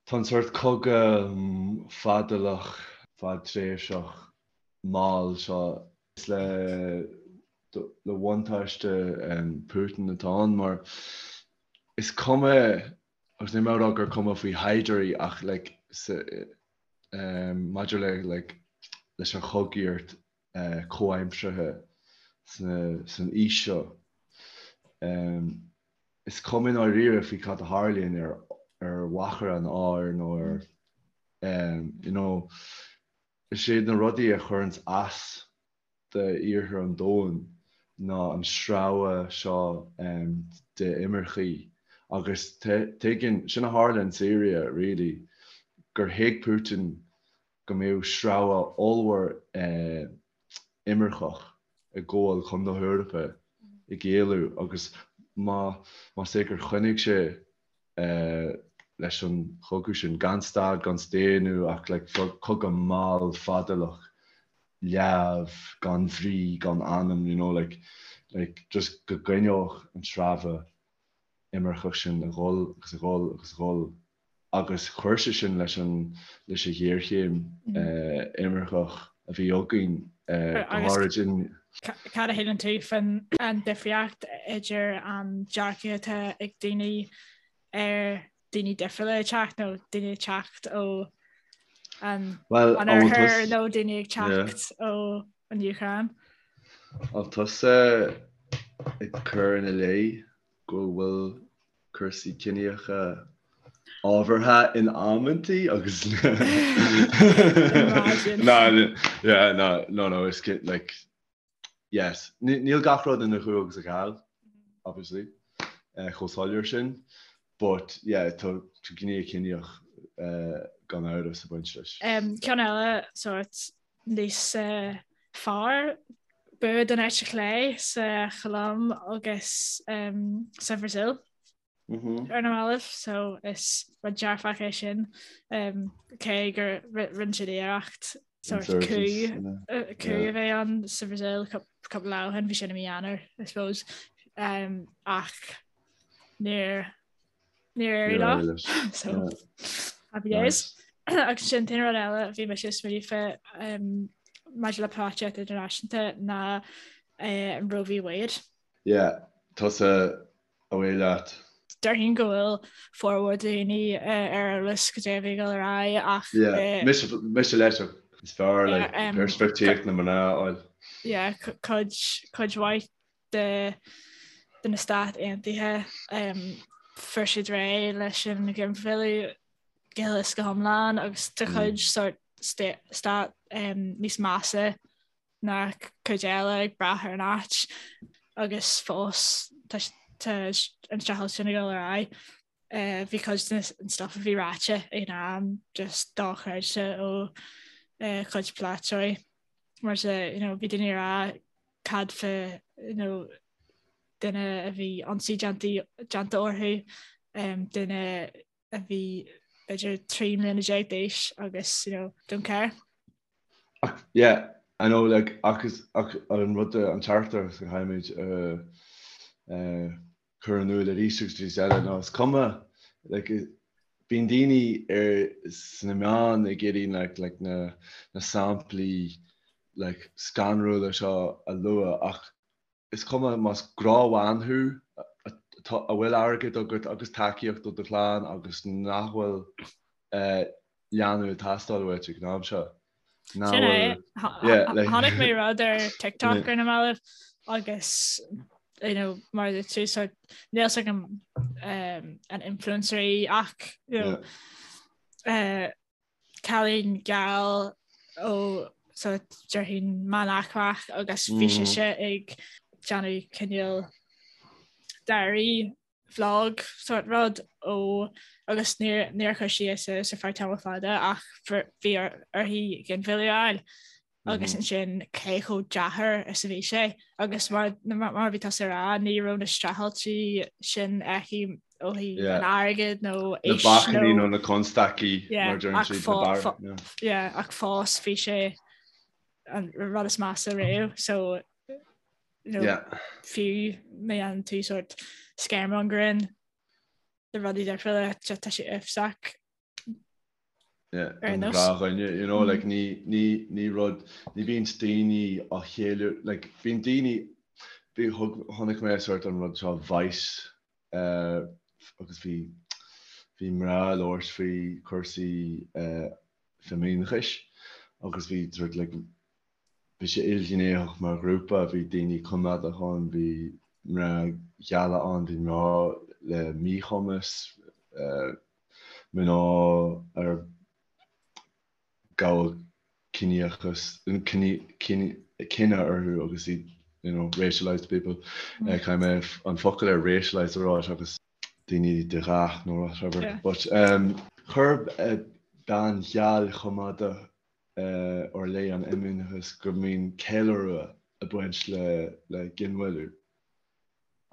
tá an sórt cogadh fadálach, fadtréimhseach mall seo is le le buntáiste Putin atá ann mar is cuma agus níl mé ag rá gur cuma faoi shaighdiúirí ach like maidir le like leis an chogaíocht comhaimseartha san aois seo. Is cuma i ndáiríre faoi cad a tharlaíonn ar ar mhachaire an áir nó ar you know is iad na rudaí a chuireanns as d'iarthar an domhain ná an sreabhadh seo de imircigh agus tuigeann, sin a tharla in Syria really, gur thuig Putin go mbeadh sreabhadh ollmhór imirceach ag gabháil chun na hEorpa ag éalú agus más é gur choinnigh sé leis an chogadh sin, gan stad, gan staonadh ach like cogadh mall fadálach, leamh, gan bhrí, gan anam, you know, like, like just go gcoinneodh an sreabhadh imirceach sin ag dhul agus ag dhul agus ag dhul. agus chuir sé sin leis an leis an ghéarchéim imirceach a bhí againn, go háirid in. Cad a shíleann tú faoin an difríocht idir an dearcadh atá ag daoine ar daoine difriúla ag teacht nó daoine ag teacht ó an oirthear nó daoine ag teacht ó an Úcráin? An tusa ag cur ina leith go bhfuil cúrsaí ciníocha ábhartha in amantaí agus Imagine. Yeah, no, no, no, it's like, yes. Níl gach rud ina chú agus a gheal, obviously, eh, chomh soiléir sin, but yeah, tá gné ciníoch eh, gan amhras ag baint leis. Um, ceann eile sórt níos eh, fearr bua don eite chlé sa Cholóim agus um, sa Bhrasaíl ar na mallaibh, so is rud dearfach é sin um, cé gur rinne siad iarracht sórt coup coup a bheith ann sa Bhrasaíl cúpla lá ó shin, bhí sin i mí Eanáir, I suppose, um, ach níor Níor éirigh leo. So happy days. Agus sin an t-aon rud eile bhí mise ag smaoineamh fé maidir le polaitíocht idirnáisiúnta ná an Roe v Wade. Yeah, tusa away leat. Déarfainn go bhfuil formhór daoine ar eolas cad é a bhí ag dul ar aghaidh ach. Yeah, mise mise leis is fearr like peirspictíocht na mná a fháil. Yeah, cuid cuid mhaith de de na Stáit Aontaithe. Fuair siad réidh leis an ghinmhilleadh go huile is go hiomlán agus tá cuid sórt stát níos measa ná cuid eile ag brath ar an áit agus fós tá an streachailt sin ag dul ar aghaidh. Bhí cuid den stuff a bhí ráite ag an am just dochreidte ó chuid polaiteoirí mar you know, bhí daoine ag rá cad fá you know, duine a bhí ionsaí déanta orthu, duine a bhí b'fhéidir 13 mbliana d'aois agus you know, don't care. Ach yeah, I know like ach is ach an rud an teachtaireacht a chaithfimid a chur in iúl arís agus arís eile ná is cuma like bíonn daoine ar sna meáin ag iarraidh like like na na samplaí like scanrúla seo a lua ach is cuma más gnáthbhean thú a bhfuil airgead agat agus tacaíocht ó do chlann agus nach bhfuil eh. dhéanamh ag teastáil uait ag an am seo. Sin é. Chonaic mé rud ar TikTok ar na mallaibh agus you know, mar a tú so níl a fhios agam um, an influencer í ach you know, yeah. uh, cailín geal ó so déarfainn meánaicmeach agus bhí mm. sise ag déanamh cineál diary vlog sort rud ó agus níor níor chuir sí é suas ar feadh tamall fada ach bhí uirthi ginmhilleadh a fháil agus ansin cé chomh deacair is a bhí sé agus mar mar a bhí tusa ag rá ní raibh na streachailtí sin aici ó thaobh an airgid nó na bacainní nó na constaicí mar deireann siad na bar yeah ach fós bhí sé an rud is measa riamh so you know, fiú má dhéanann tú sort scaremongering de rudaí difriúla tá sé uafásach ar nós. Ghnáthdhuine, you know, like ní, ní, ní rud, ní bhíonn daoine á cheiliúradh, like bíonn daoine, bhí, thug, chonaic mé sort an rud seo Vice uh, agus bhí, bhí mná ag labhairt faoi cúrsaí uh, feimineachais agus bhí sort like Bhí sé ilghnéitheach mar ghrúpa, bhí daoine coimeádach ann, bhí mná geala ann, bhí mná le míchumas, mná ar gabhadh ciníochas, cine orthu agus iad, you know, racialised people. Caithfidh mé an focal ar racialised a rá seachas daoine de dhath nó whatever. But chuir bean gheal choimeádach ar leith an fheimineachas go mbíonn ceiliúradh ag baint le ginmhilleadh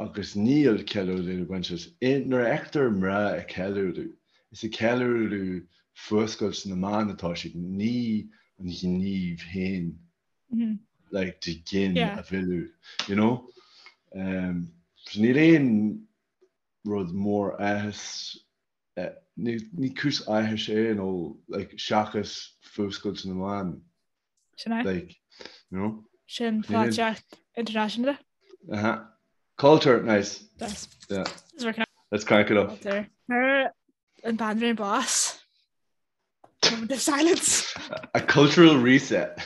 agus níl ceiliúradh ag baint leis. Nuair a fheictear mná ag ceiliúradh, is ag ceiliúradh fuascailt na mban atá siad, ní an gníomh féin like de ghin a mhilleadh, you know? So níl aon rud mór áthais Ní cúis áthais é nó like seachas fuascailt na mban. Sin é. Like, you know? Sin polaitíocht idirnáisiúnta. Uh-huh. Culture, nice. Nice. Yeah. Let's crank it up. Culture. Fuair an Bhanríon bás. Moment of silence. A cultural reset.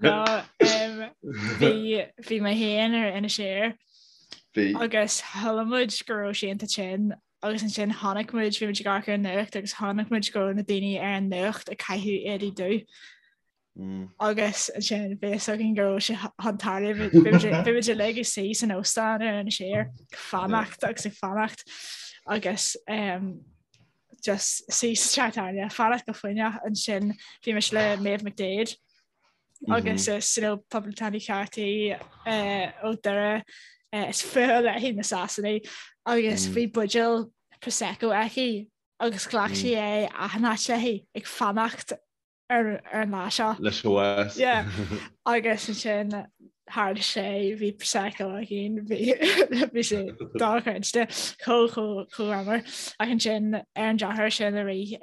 No, um, bhí bhí mé féin ar Inis Oírr Bhí. agus shíl muid go raibh sí iontach tinn agus ansin chonaic muid bhí muid ag amharc ar an nuacht agus chonaic muid go raibh na daoine ar an nuacht ag caitheamh éadaí dubh agus ansin bhí fhios againn go raibh sé chun tarlú bhí muid uilig ag suí san óstán ar Inis Oírr ag fanacht agus ag fanacht agus um, just suí sa teach tábhairne, fanacht go foighneach ansin bhí mise le Maeve McDaid agus is you know, poblachtánaí ceart í uh, ó Doire uh, is fuath léi na Sasanaigh agus bhí buidéal Prosecco aici agus ghlac sí é achan áit léi ag fanacht ar an lá seo. Leis an bhás. Yeah. Agus ansin tharla sé bhí Prosecco againn bhí bhí sé dochreidte chomh chomh chomh greannmhar. Ach ansin ar an drochuair sin i rith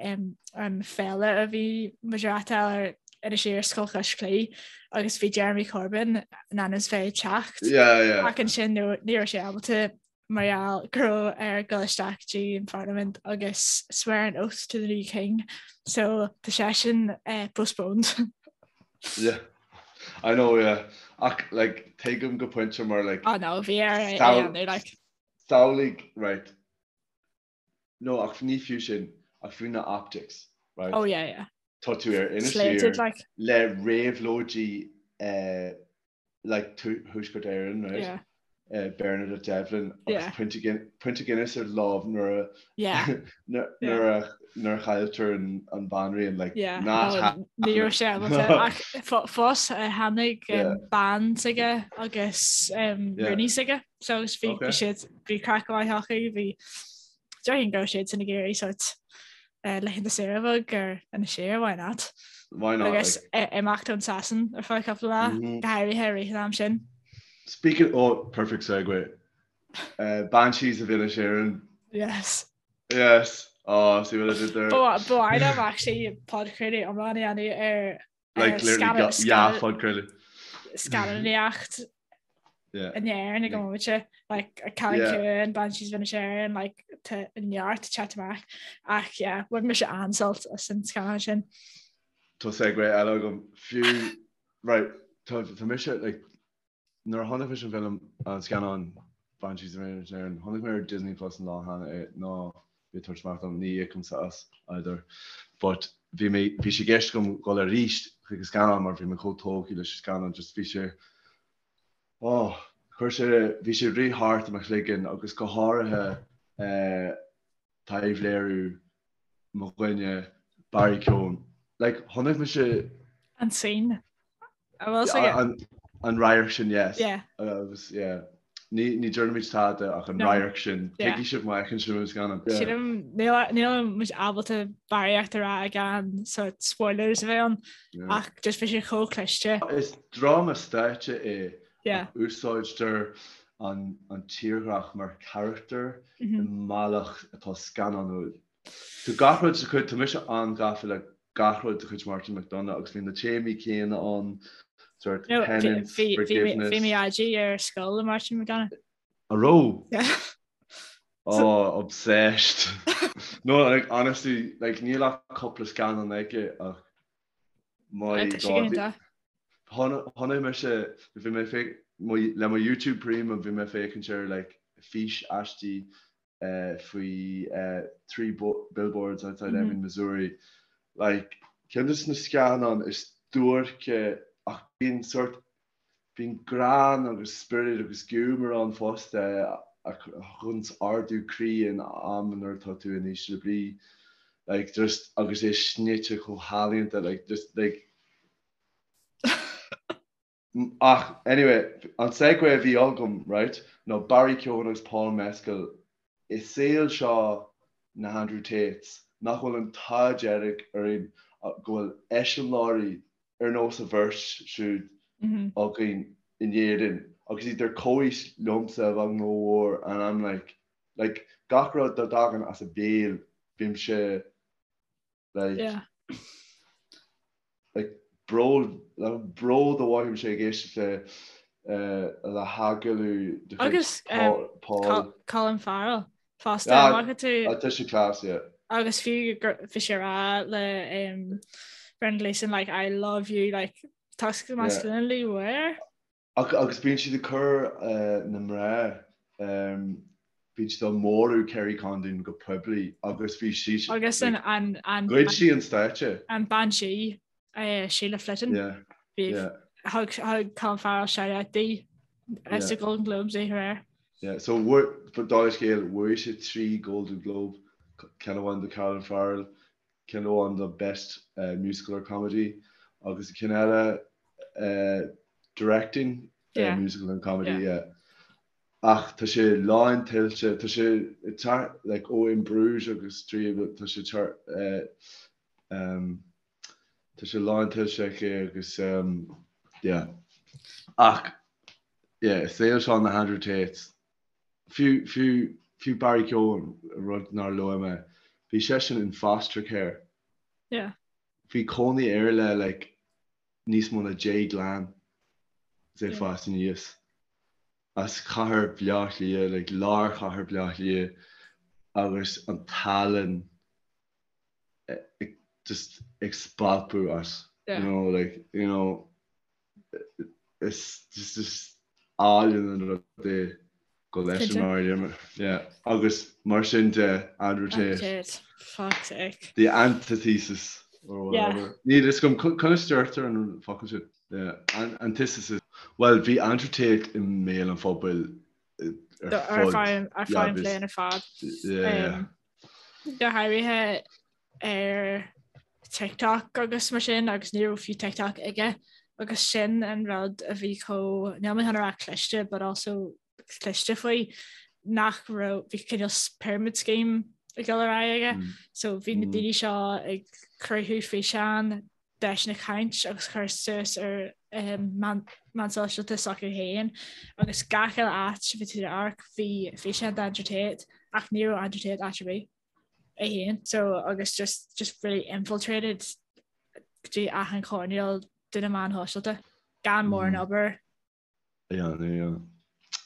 an féile a bhí muid ag reáchtáil ar Inis Oírr Scoil Chois Claí agus bhí Jeremy Corbyn in ainm is bheith ag teacht. Yeah, yeah. Ach ansin ní raibh sé ábalta mar gheall go raibh air dul isteach dtí an Pharlaimint agus swear an oath to the new king so tá seisean eh, postponed. Yeah. I know, yeah. Ach, like, tuigim go pointe mar, like... Oh no, bhí air é a dhéanamh, like. Samhlaigh, right. No, ach ní fiú sin, ach fiú na optics, right? Oh yeah, yeah. Tá tú ar Inis Oírr like. le réabhlóidí eh, like Thuaisceart Éireann, right? Yeah. Uh, Bernadette Devlin agus Yeah. pionta Guin- pionta Guinness ar lámh nuair a Yeah. nuair Yeah. nuair a nuair a chailltear an an bhanríon like Yeah. not No, happening. ní raibh sé ábalta ach fo- fós eh, tháinig um, Yeah. bean s'aige agus um, Yeah. rúnaí s'aige so agus bhí Okay. bhí siad bhí craic mhaith acu bhí déarfainn go raibh siad san ag iarraidh sort eh, laethanta saoire bheag ar Inis Oírr, why not? Why not? Agus Like, eh, imeacht ón Sasain ar feadh cúpla lá, Mhm. go háirithe i rith an am sin. speaking oh perfect segue. Uh, Banshees of Inisherin. Yes. Yes. Oh, see what I did there? Ba mhaith liom actually podchraoladh iomlán a dhéanamh ar Like literally yeah, podchraoladh. scannánaíocht. In Éirinn ag an mbomaite, like Cailín Ciúin, Banshees of Inisherin, like tá neart ag teacht amach ach yeah, bhain mise an-sult as an scannán sin. Tá segue eile agam fiú, right, tá tá mise like nuair a chonaic mise an film an scannán Banshees of Inisherin, chonaic mé ar Disney Plus an lá cheana é ná bí ag tabhairt amach dom, ní íocaimse as either, but bhí mé bhí sé i gceist agam dhul arís chuig an scannán mar bhí mé chomh tógtha leis an scannán just bhí sé Oh, chuir sé, bhí sé ag rith thart i mo chloigeann agus go háirithe taibhléiriú mo dhuine Barry Keoghan. Like, chonaic mise. An scene. A bhfuil 's aige? An radharc sin, yes. Yeah. Agus, yeah. Ní, ní déarfaimid tada ach an radharc sin. Tuigfidh sibh má fheiceann sibh an scannán. Sílim, níl, níl muid ábalta barraíocht a rá gan sort spoilers a bheith ann ach just bhí sé chomh cliste. Is dráma stáitse é ach úsáidtear an tírdhreach mar charachtar i mbealach atá scannánúil. Tá gach rud de chuid, tá mise an-ghafa le gach rud de chuid Martin McDonagh agus bhí na téamaí céanna ann, sort penance, forgiveness. Bhí mé IG ar scoil le Martin McDonagh. An raibh? Yeah. Oh, obsessed. No, like, honestly, like, níl ach cúpla scannán aige ach my God. Chonaic mise, bhí mé féach, le mo YouTube Premium bhí mé féachaint ar like fís aistí faoi 3 Billboards Outside Ebbing, Missouri. Like, ceann de na scannáin is duairce ach bíonn sort, bíonn greann agus spiorad agus giúmar ann fosta a thugann ardú croí in am nuair atá tú in ísle brí. Like, just, agus é snoite chomh healaíonta, like, just, like, Ach, anyway, an segue a bhí agam, right, ná Barry Keoghan agus Paul Mescal i saol seo na hAndrew Tates, nach bhfuil an t-ádh dearg orainn go bhfuil eiseamláirí ar nós a bheirt siúd againn in Éirinn agus iad ar comhaois liomsa a bheag nó a mhór and I'm like, like, gach rud dá dtagann as a béal, bímse Like, Yeah. like bród, like bród a mhothaímse ag éisteacht le eh, le hagallamh de chuid Agus um, Paul, Paul. Col- Colin Farrell fosta Ah, an bhfaca tú ah, tá sé class, yeah. agus fiú gur bhí sé ag rá le um, Brendan Gleeson like I love you like toxic masculinity where? Ach agus bíonn siad ag cur na mná, bíonn siad á mórú Kerry Condon go poiblí agus bhí sí, Agus an, an, an, ghoid sí an stáitse. an bean sí, Sheila Flitton, Yeah, bhí, yeah. thug, thug Colin Farrell shout out di Yeah. sa Golden Globes oíche aréir. Yeah, so bhuaigh, dála scéil, bhuaigh sé 3 Golden Globe, ceann amháin do Colin Farrell, ceann amháin do Best Musical or Comedy agus ceann eile Directing Musical and Comedy, yeah. Ach tá sé lán tuillte, tá sé tar, like, ó In Bruges agus tá sé tar, tá sé lán tuillte aici agus, yeah. Ach, yeah, i saol seo na hAndrew Tates, Fiú, fiú, fiú Barry Keoghan, rud nár luaigh mé, bhí seisean in foster care. Yeah. Bhí cónaí air le like níos mó ná 10 gclann is é ag fás aníos. As chathair Bhaile Átha Cliath, like lár chathair Bhaile Átha Cliath agus an tallann just ag spalpadh as, you know, like, you know, Is just is álainn an rud é go leis an Maria. Yeah. Agus mar sin de Andrew Tate. Tate. Fuck's sake. The antithesis or whatever. Níl a fhios agam conas deirtear an focal sin. Yeah. An antithesis. Well, bhí Andrew Tate i mbéal an phobail ar fud. Ar feadh an bhliain ar fad. Yeah. Go háirithe ar TikTok agus mar sin agus ní raibh fiú TikTok aige agus sin an rud a bhí chomh, níl mé chun a rá cliste but also cliste faoi nach raibh, bhí cineál pyramid scheme ag dul ar aghaidh aige mm. so bhí na mm. daoine seo ag cruthú físeán deiseanna caint agus cur suas ar um, meán sóisialta s'acu féin agus gach uile áit bhí tú amharc bhí físeán d'Andrew Tate ach ní raibh Andrew Tate áit ar bith. é féin so agus just just really infiltrated go dtí achan choirnéal de na meáin shóisialta gan mórán mm. obair. Yeah, yeah.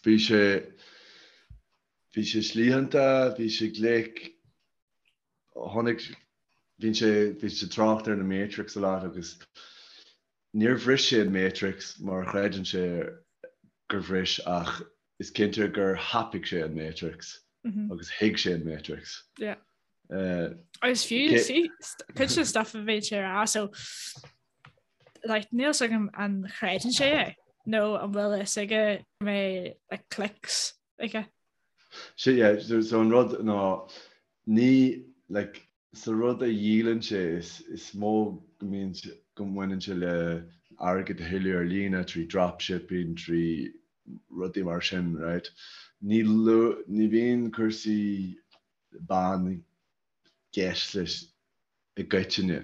Bhí sé bhí sé slítheanta, bhí sé glic, tháinig bhí sé bhí sé trácht ar na Matrix a lot agus níor bhris sé an Matrix mar a chreideann sé gur bhris ach is cinnte gur thapaigh sé an Matrix agus thuig sé an Matrix. Yeah. Agus fiú cuid den stuff a bhí sé a rá so like níl fhios agam an chreideann sé é nó an bhfuil fhios aige go mbeidh like clicks aige. Sé yeah, so, so an rud ná ní like sa rud a dhíolann sé is, is mó go mbíonn go mbaineann sé le airgead a thuilleamh ar líne trí dropshipping, trí rudaí mar sin, right? Ní, ní bhíonn cúrsaí ban i gceist leis i gcoitinne.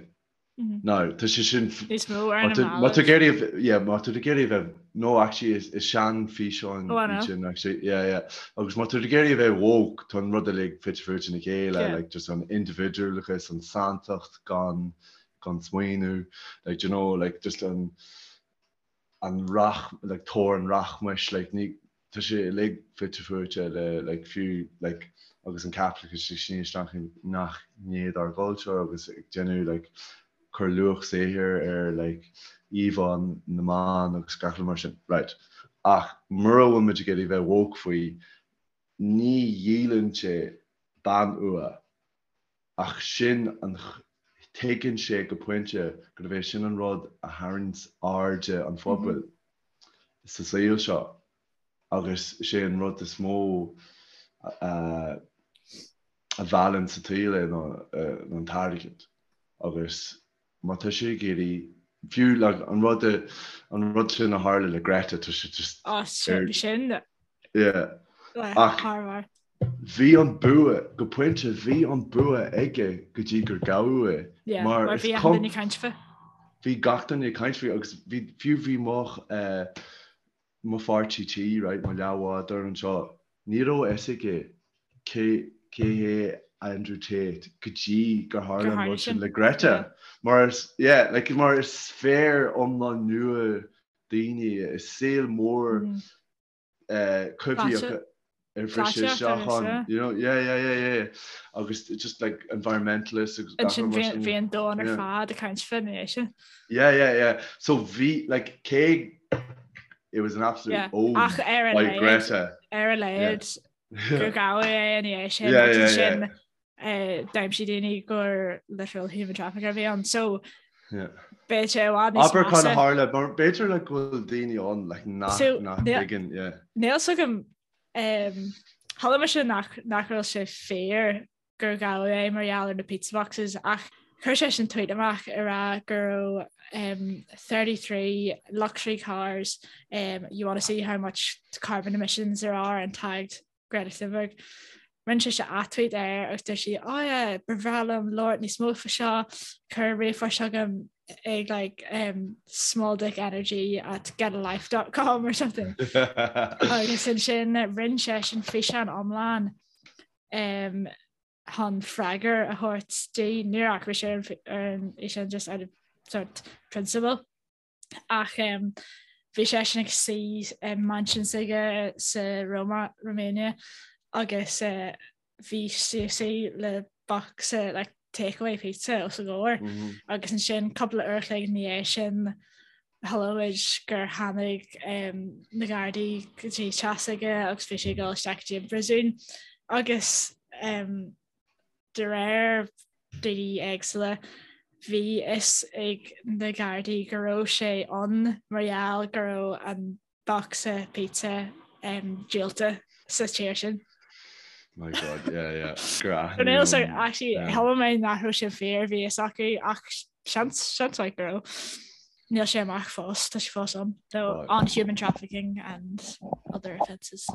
Now, tá sé sin... Níos mó ar na mallaibh. Má tá ag iarraidh, yeah, má tá ag iarraidh a bheith, no, actually, is, is sean-fhíseán Oh, I know. sin, actually, yeah, yeah. Agus má tá ag iarraidh a bheith woke, tá an rud uilig fite fuaite ina chéile, Yeah. like, just an indibhidiúlachas, an santacht gan, gan smaoineamh, like, do you know, like, just an, an rach, like tóir an rachmais, like ní, tá sé uilig fite fuaite le like fiú like agus an caipitleachas ag síneadh isteach i ngach gné dár gcultúr agus ag déanamh like cur luach saothair ar like íomhá na mban agus gach rud mar sin. Right. Ach mura bhfuil muid ag iarraidh bheith woke faoi, ní dhíolann sé bean fhuath. Ach sin an, tuigeann sé go pointe gurb é sin an rud a tharraingíonns airde an phobail sa saol seo agus is é an rud is mó a mheallann sa tsaol é ná an t-airgead. Agus má tá sé ag iarraidh, fiú like an rud an rud sin a tharla le Greta, tá sé just Á, ar, sin yeah. le Ach thar barr. bhí an bua, go pointe, bhí an bua aige go dtí gur gabhadh é. Yeah, Mar mar is bhí achan cum, duine ag caint faoi. bhí gach duine ag caint faoi agus bhí, fiú bhí mo, eh, mo pháirtí tí, right, mo leathbhádóir anseo, ní raibh a fhios aige cé cé hé Andrew Tate go dtí gur tharla an rud sin le Greta. Mar is, yeah, like, mar is sféar iomlán nua daoine, is saol mór eh, coimhthíoch ar bhris sé isteach ann, you know, yeah, yeah, yeah, yeah, agus just like environmentalists agus gach rud mar sin. Bhí an domhan ar fad ag caint faoi ina dhiaidh sin. Yeah, yeah, yeah. So bhí, like, cé it was an absolute Yeah. own Ach ar a by laghad, Greta. ar a laghad gur gabhadh é ina dhiaidh sin Yeah, agus yeah, ansin yeah. eh, d'aimsigh daoine gur literal human trafficker a bhí ann. So Yeah. beidh sé i bhfad níos Abair cad a measa. tharla, mar b'fhéidir like go bhfuil daoine ann like nach So, nach níl- dtuigeann, yeah. Níl fhios agam um, chuala mise nach nach raibh sé fíor gur gabhadh é mar gheall ar na pizza boxes ach chuir seisean tweet amach ag rá go raibh um, 33 luxury cars um, you want to see how much carbon emissions there are and tagged Greta Thunberg. Rinne sise ath-tweet air agus dúirt sí oh yeah, ba bhreá liom labhairt níos mó faoi seo, cuir ríomhphost chugam ag like um, small dick energy at getalife.com or something. Agus ansin rinne seisean físeán iomlán um, chun freagra a thabhairt di níor athraigh sé ar an fhíseán just out of sort principle. Ach um, bhí seisean ag suí i mansion s'aige sa Roma, Romania agus uh, bhí sí ag suí le bocsa like, takeaway pizza os a gcomhair Mm -hmm. agus ansin cúpla uair a chloig ina dhiaidh sin Chuala muid gur tháinig na Gardaí go dtí teach s'aige agus bhí sé ag dul isteach go dtí an bpríosún agus de réir daoine éagsúla bhí fhios ag na Gardaí go raibh sé ann mar gheall go raibh an bocsa pizza díolta sa tír sin. My God, yeah, yeah. Gur aithníodh. So actually chuala mé nach raibh sé fíor bhí fhios acu ach seans seans maith go raibh. Níl sé amach fós, tá sé fós ann. So on human trafficking and other offences.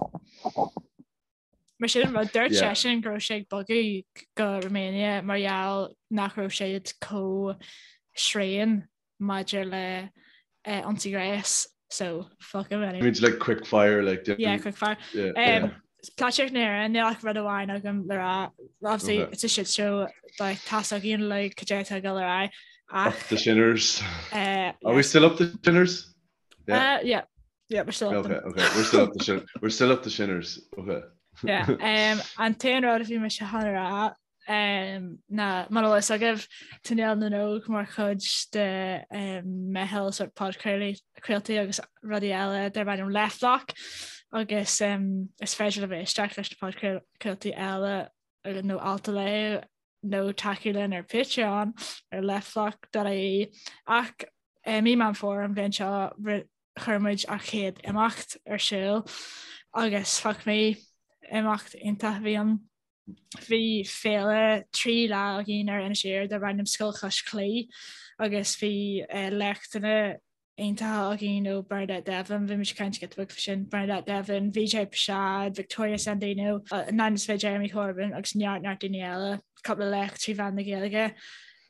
Mar sin rud dúirt seisean go raibh sé ag bogadh go Romania mar gheall nach raibh siad chomh tréan maidir le ionsaí gnéis so fuck him anyway. Means like quick fire like Yeah, quick fire. Yeah, yeah. Um, Polaitíocht na hÉireann, níl ach rud amháin agam le rá. Obviously, Okay. it's a shit show, like, tá fhios againn like, cad é atá ag dul ar aghaidh. Up Ach, the shinners. uh, Are we still up the shinners? Yeah. Uh, yeah. Yeah, we're still up okay, okay. We're still up the we're still up the shinners. Okay. Yeah, um, an t-aon rud a bhí mise chun a rá um, ná mar atá a fhios agaibh tá Néal na nÓg mar chuid de um, meitheal sort podchraoltaí agus rudaí eile darb ainm Leftblock agus um, is féidir libh éisteacht leis na podchraoltaí eile nó alt a léamh nó tacú linn ar Patreon ar leftblock.ie ach i mí Meán Fómhair an bhliain seo chuir muid ár chéad imeacht ar siúl agus fuck me, imeacht iontach a bhí ann. Bhí féile 3 lá againn ar Inis Oírr darb ainm Scoil Chois Claí agus bhí léachtanna iontacha againn ó Bernadette Devlin, bhí muid ag caint giota beag faoi sin, Bernadette Devlin, Vijay Prashad, Victoria Sandino, Nine is Jeremy Corbyn agus neart neart daoine eile, cúpla léacht trí mheán na Gaeilge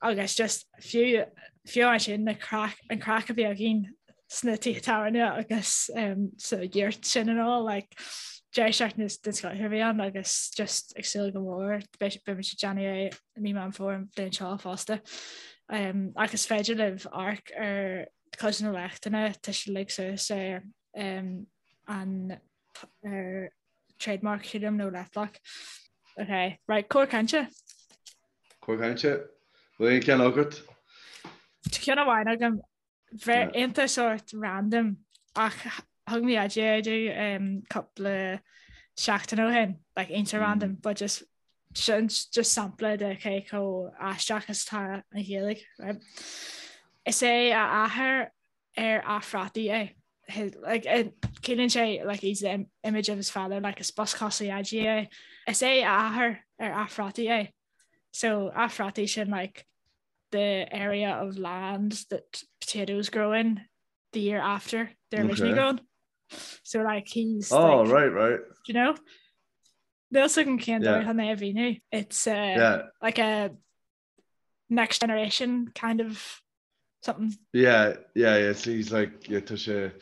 agus just fiú fiú ansin na craic an craic a bhí againn sna tithe tábhairne agus um, sa yurt sin and all like deireadh seachtaine den scoth a bhí ann agus just ag súil go mór beidh muid ag déanamh é i mí Meán Fómhair an bhliain seo fosta. Um, ach is féidir libh amharc ar cuid de na léachtanna tá siad uilig suas ar um, an ar trademark sílim nó Leftblock. Ok, right, cor cainte. Cor cainte? Bhfuil aon cheann agat? Tá ceann amháin agam Bheith iontach sort random ach thug mé idea domh cúpla seachtain ó shin, like iontach random but just sin just sampla de cé chomh aisteach is atá an Ghaeilge, right? Is é a athair ar a phrátaí é. His, like, ciallaíonn sé like he's the image of his father, like is boscos a dhaidí é. Is é a athair ar a phrátaí é. So a phrátaí sin like the area of land that potatoes grow in the year after they're originally okay. grown. So like he's Oh like, right, right. Do you know? Níl a fhios agam cén dóigh chun é a mhíniú. It's uh, yeah. like a next generation kind of something. Yeah, yeah, yeah. So he's like yeah, tá sé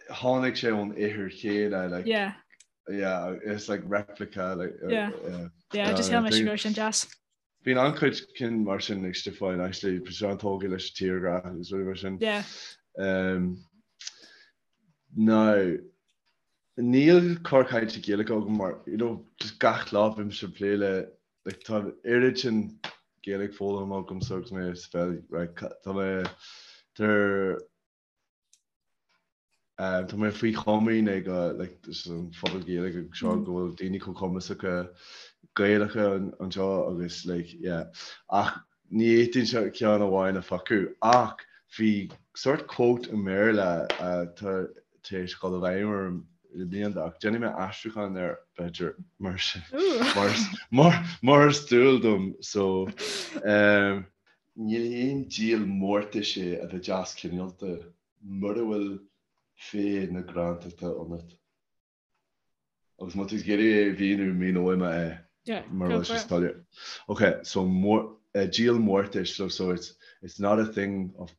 tháinig sé ón ithir chéanna like yeah. Yeah, it's like replica like uh, yeah. Yeah, yeah just shíl mé go raibh sin deas. Bíonn an-chuid cinn mar sin ag Stiofáin actually, bíonn sé an-tógtha leis an tírghrá agus rudaí mar sin. Yeah. Um, now, níl cor cainte Gaeilge agam mar, you know, just gach lá bímse ag plé le, like, tá an oiread sin Gaeilge foghlamtha agamsa agus mé sa pheil, right, tá mé, tá Tá mé faoi chomaoin ag an phobal Gaeilge anseo go bhfuil daoine chomh cumasacha Gaelacha anseo agus like yeah ach ní fhéadfainnse ceann amháin a phiocadh ach bhí sort quote i mBéarla atá tar éis dul i bhfeidhm orm le blianta ach déanfaidh mé aistriúchán air b'fhéidir mar mar mar mar is dual dom so um, Ní haon díol mórtais é a bheith deas cineálta mura bhfuil féith na grántachta ionat. Agus má tá tú ag iarraidh é a mhíniú, míneoidh mé é mura bhfuil sé soiléir. Ok, so díol mórtais, so so it's it's not a thing of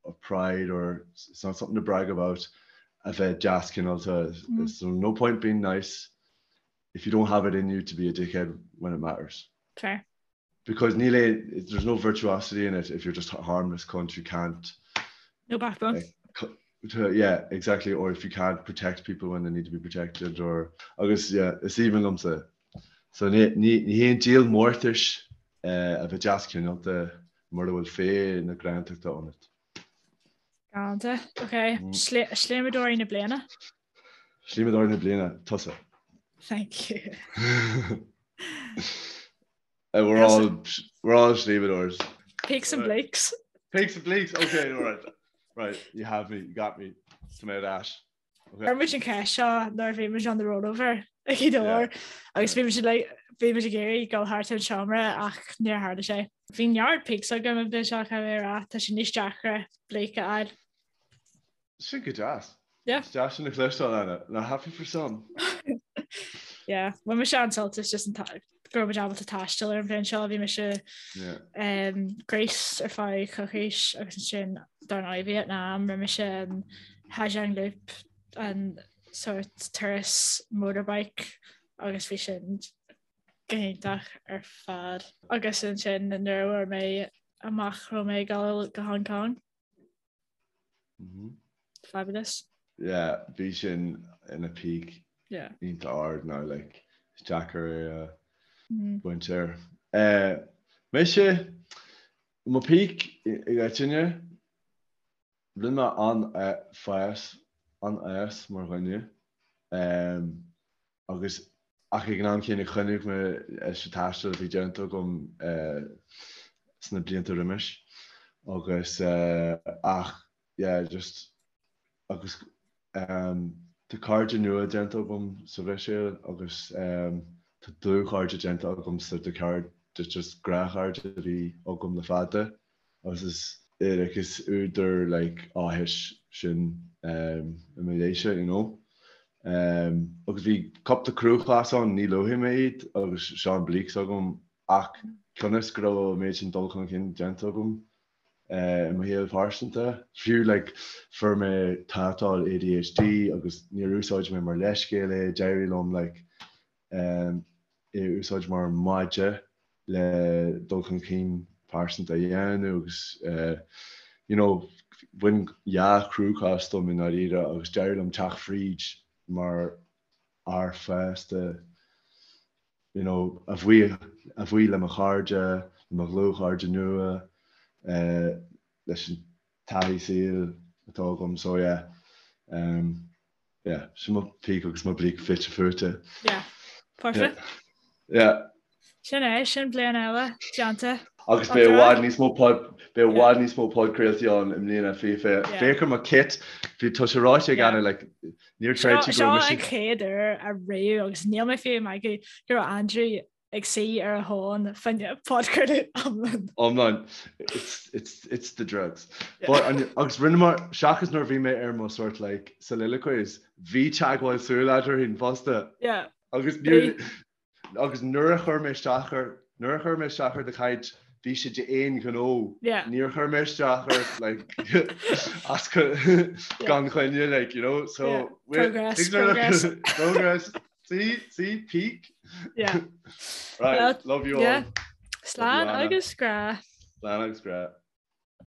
of pride or it's not something to brag about a bheith deas cineálta. So no point being nice if you don't have it in you to be a dickhead when it matters. Fair. Because níl aon, there's no virtuosity in it if you're just a harmless cunt who can't. No backbone. Uh, yeah, exactly. Or if you can't protect people when they need to be protected or agus yeah, is aoibhinn liomsa. So ní, ní, ní haon díol mórtais uh, a bheith deas cineálta mura bhfuil féith na grántachta ionat. Galánta. Ok. Mm. Sléibhteoirí na bliana? Sléibhteoirí na bliana, tusa. Thank you. Uh, we're all we're all sléibhteoirs. Peaks and Blakes. Peaks and Blakes. Okay, all right. Right, you have me. You got me. Tá mé ar ais. Chuir muid an cheist seo nuair a bhí muid on the rollover ag Gaoth Dobhair agus bhí muid like bhí muid ag iarraidh dul thart an seomra ach níor tharla sé. Bhí neart peaks agam an bhliain seo caithfidh mé a rá, tá sé níos deacra Blake a fháil. Sin go deas. Yeah. Is deas sin a chloisteáil Anna. Now happy for some. Yeah, bhain mise an-sult as just an go raibh muid ábalta taisteal ar an bhliain seo, bhí mise um, Greece ar feadh coicís agus ansin dar ndóigh Vietnam, rinne mise an Ha Giang Loop an sort turas motorbike agus bhí sin go hiontach ar fad. Agus ansin nuair a fuair mé amach raibh mé ag dul go Hong Kong. Mm -hmm. Fabulous. Yeah, bhí sin ina peak Yeah. iontach ard now, like, is deacair é a bhaint air. Eh, mise, mo peak i gcoitinne, rinne mé an-fhás, an-fhás mar dhuine, em, agus ach ag an am céanna choinnigh mé leis an taisteal a bhí déanta agam eh, sna blianta roimis agus eh, ach yeah just agus um, tá cairde nua déanta agam sa Bhruiséil agus um, tá dlúthchairde déanta agam sa de cairde just gnáthchairde a bhí agam le fada agus is like is údar like áthais sin um, i mo leithse you know. Um, agus bhí cúpla cruachás ann ní luafaidh mé iad agus seo an bleak agam ach cionn is go raibh an méid sin dul chun cinn déanta agam i mo shaol pearsanta. Fiú like fuair mé tátal ADHD agus níor úsáid mé mar leithscéal é, d'éirigh liom like é a úsáid mar maide le dul chun cinn pearsanta a dhéanamh agus you know bhain dhá chruachás dom i ndáiríre agus d'éirigh liom teacht fríd mar fhear fásta you know, a bhuí, a bhuí le mo chairde, le mo dhlúthchairde nua, eh, leis an taithí saoil atá agam, so yeah, um, yeah, sin mo peak agus mo bleak fite fuaite. Yeah, perfect. Yeah. yeah. Sin é, sin bliain eile, déanta. Agus beidh i bhfad níos mó pod, beidh i bhfad níos mó podchraoltaí ann i mbliana, fiche. Féach ar mo kit, bhí tá sé ráite ag Anna, like, níor chreid sí go raibh mise. Seo an chéad uair ariamh agus níl mé fiú ag magadh go raibh Andrew ag suí ar a thóin fá choinne podchraoladh iomlán. Iomlán. It's, it's, it's the drugs. But, agus rinneamar, seachas nuair a bhí mé ar mo sort like soliloquies, bhí teagmháil súl eadrainn fosta. Yeah. Agus níor, Agus nuair a chuir mé isteach ar, nuair a chuir mé isteach ar do chaint, bhí sé d'aon ghnó. Yeah. Níor chuir mé isteach ort, like, as gan choinne, like, you know, so. Yeah. Progress, progress. Progress. See, see, peak. Yeah. Right, well, love you all. Yeah. Slán agus grá. Slán agus grá.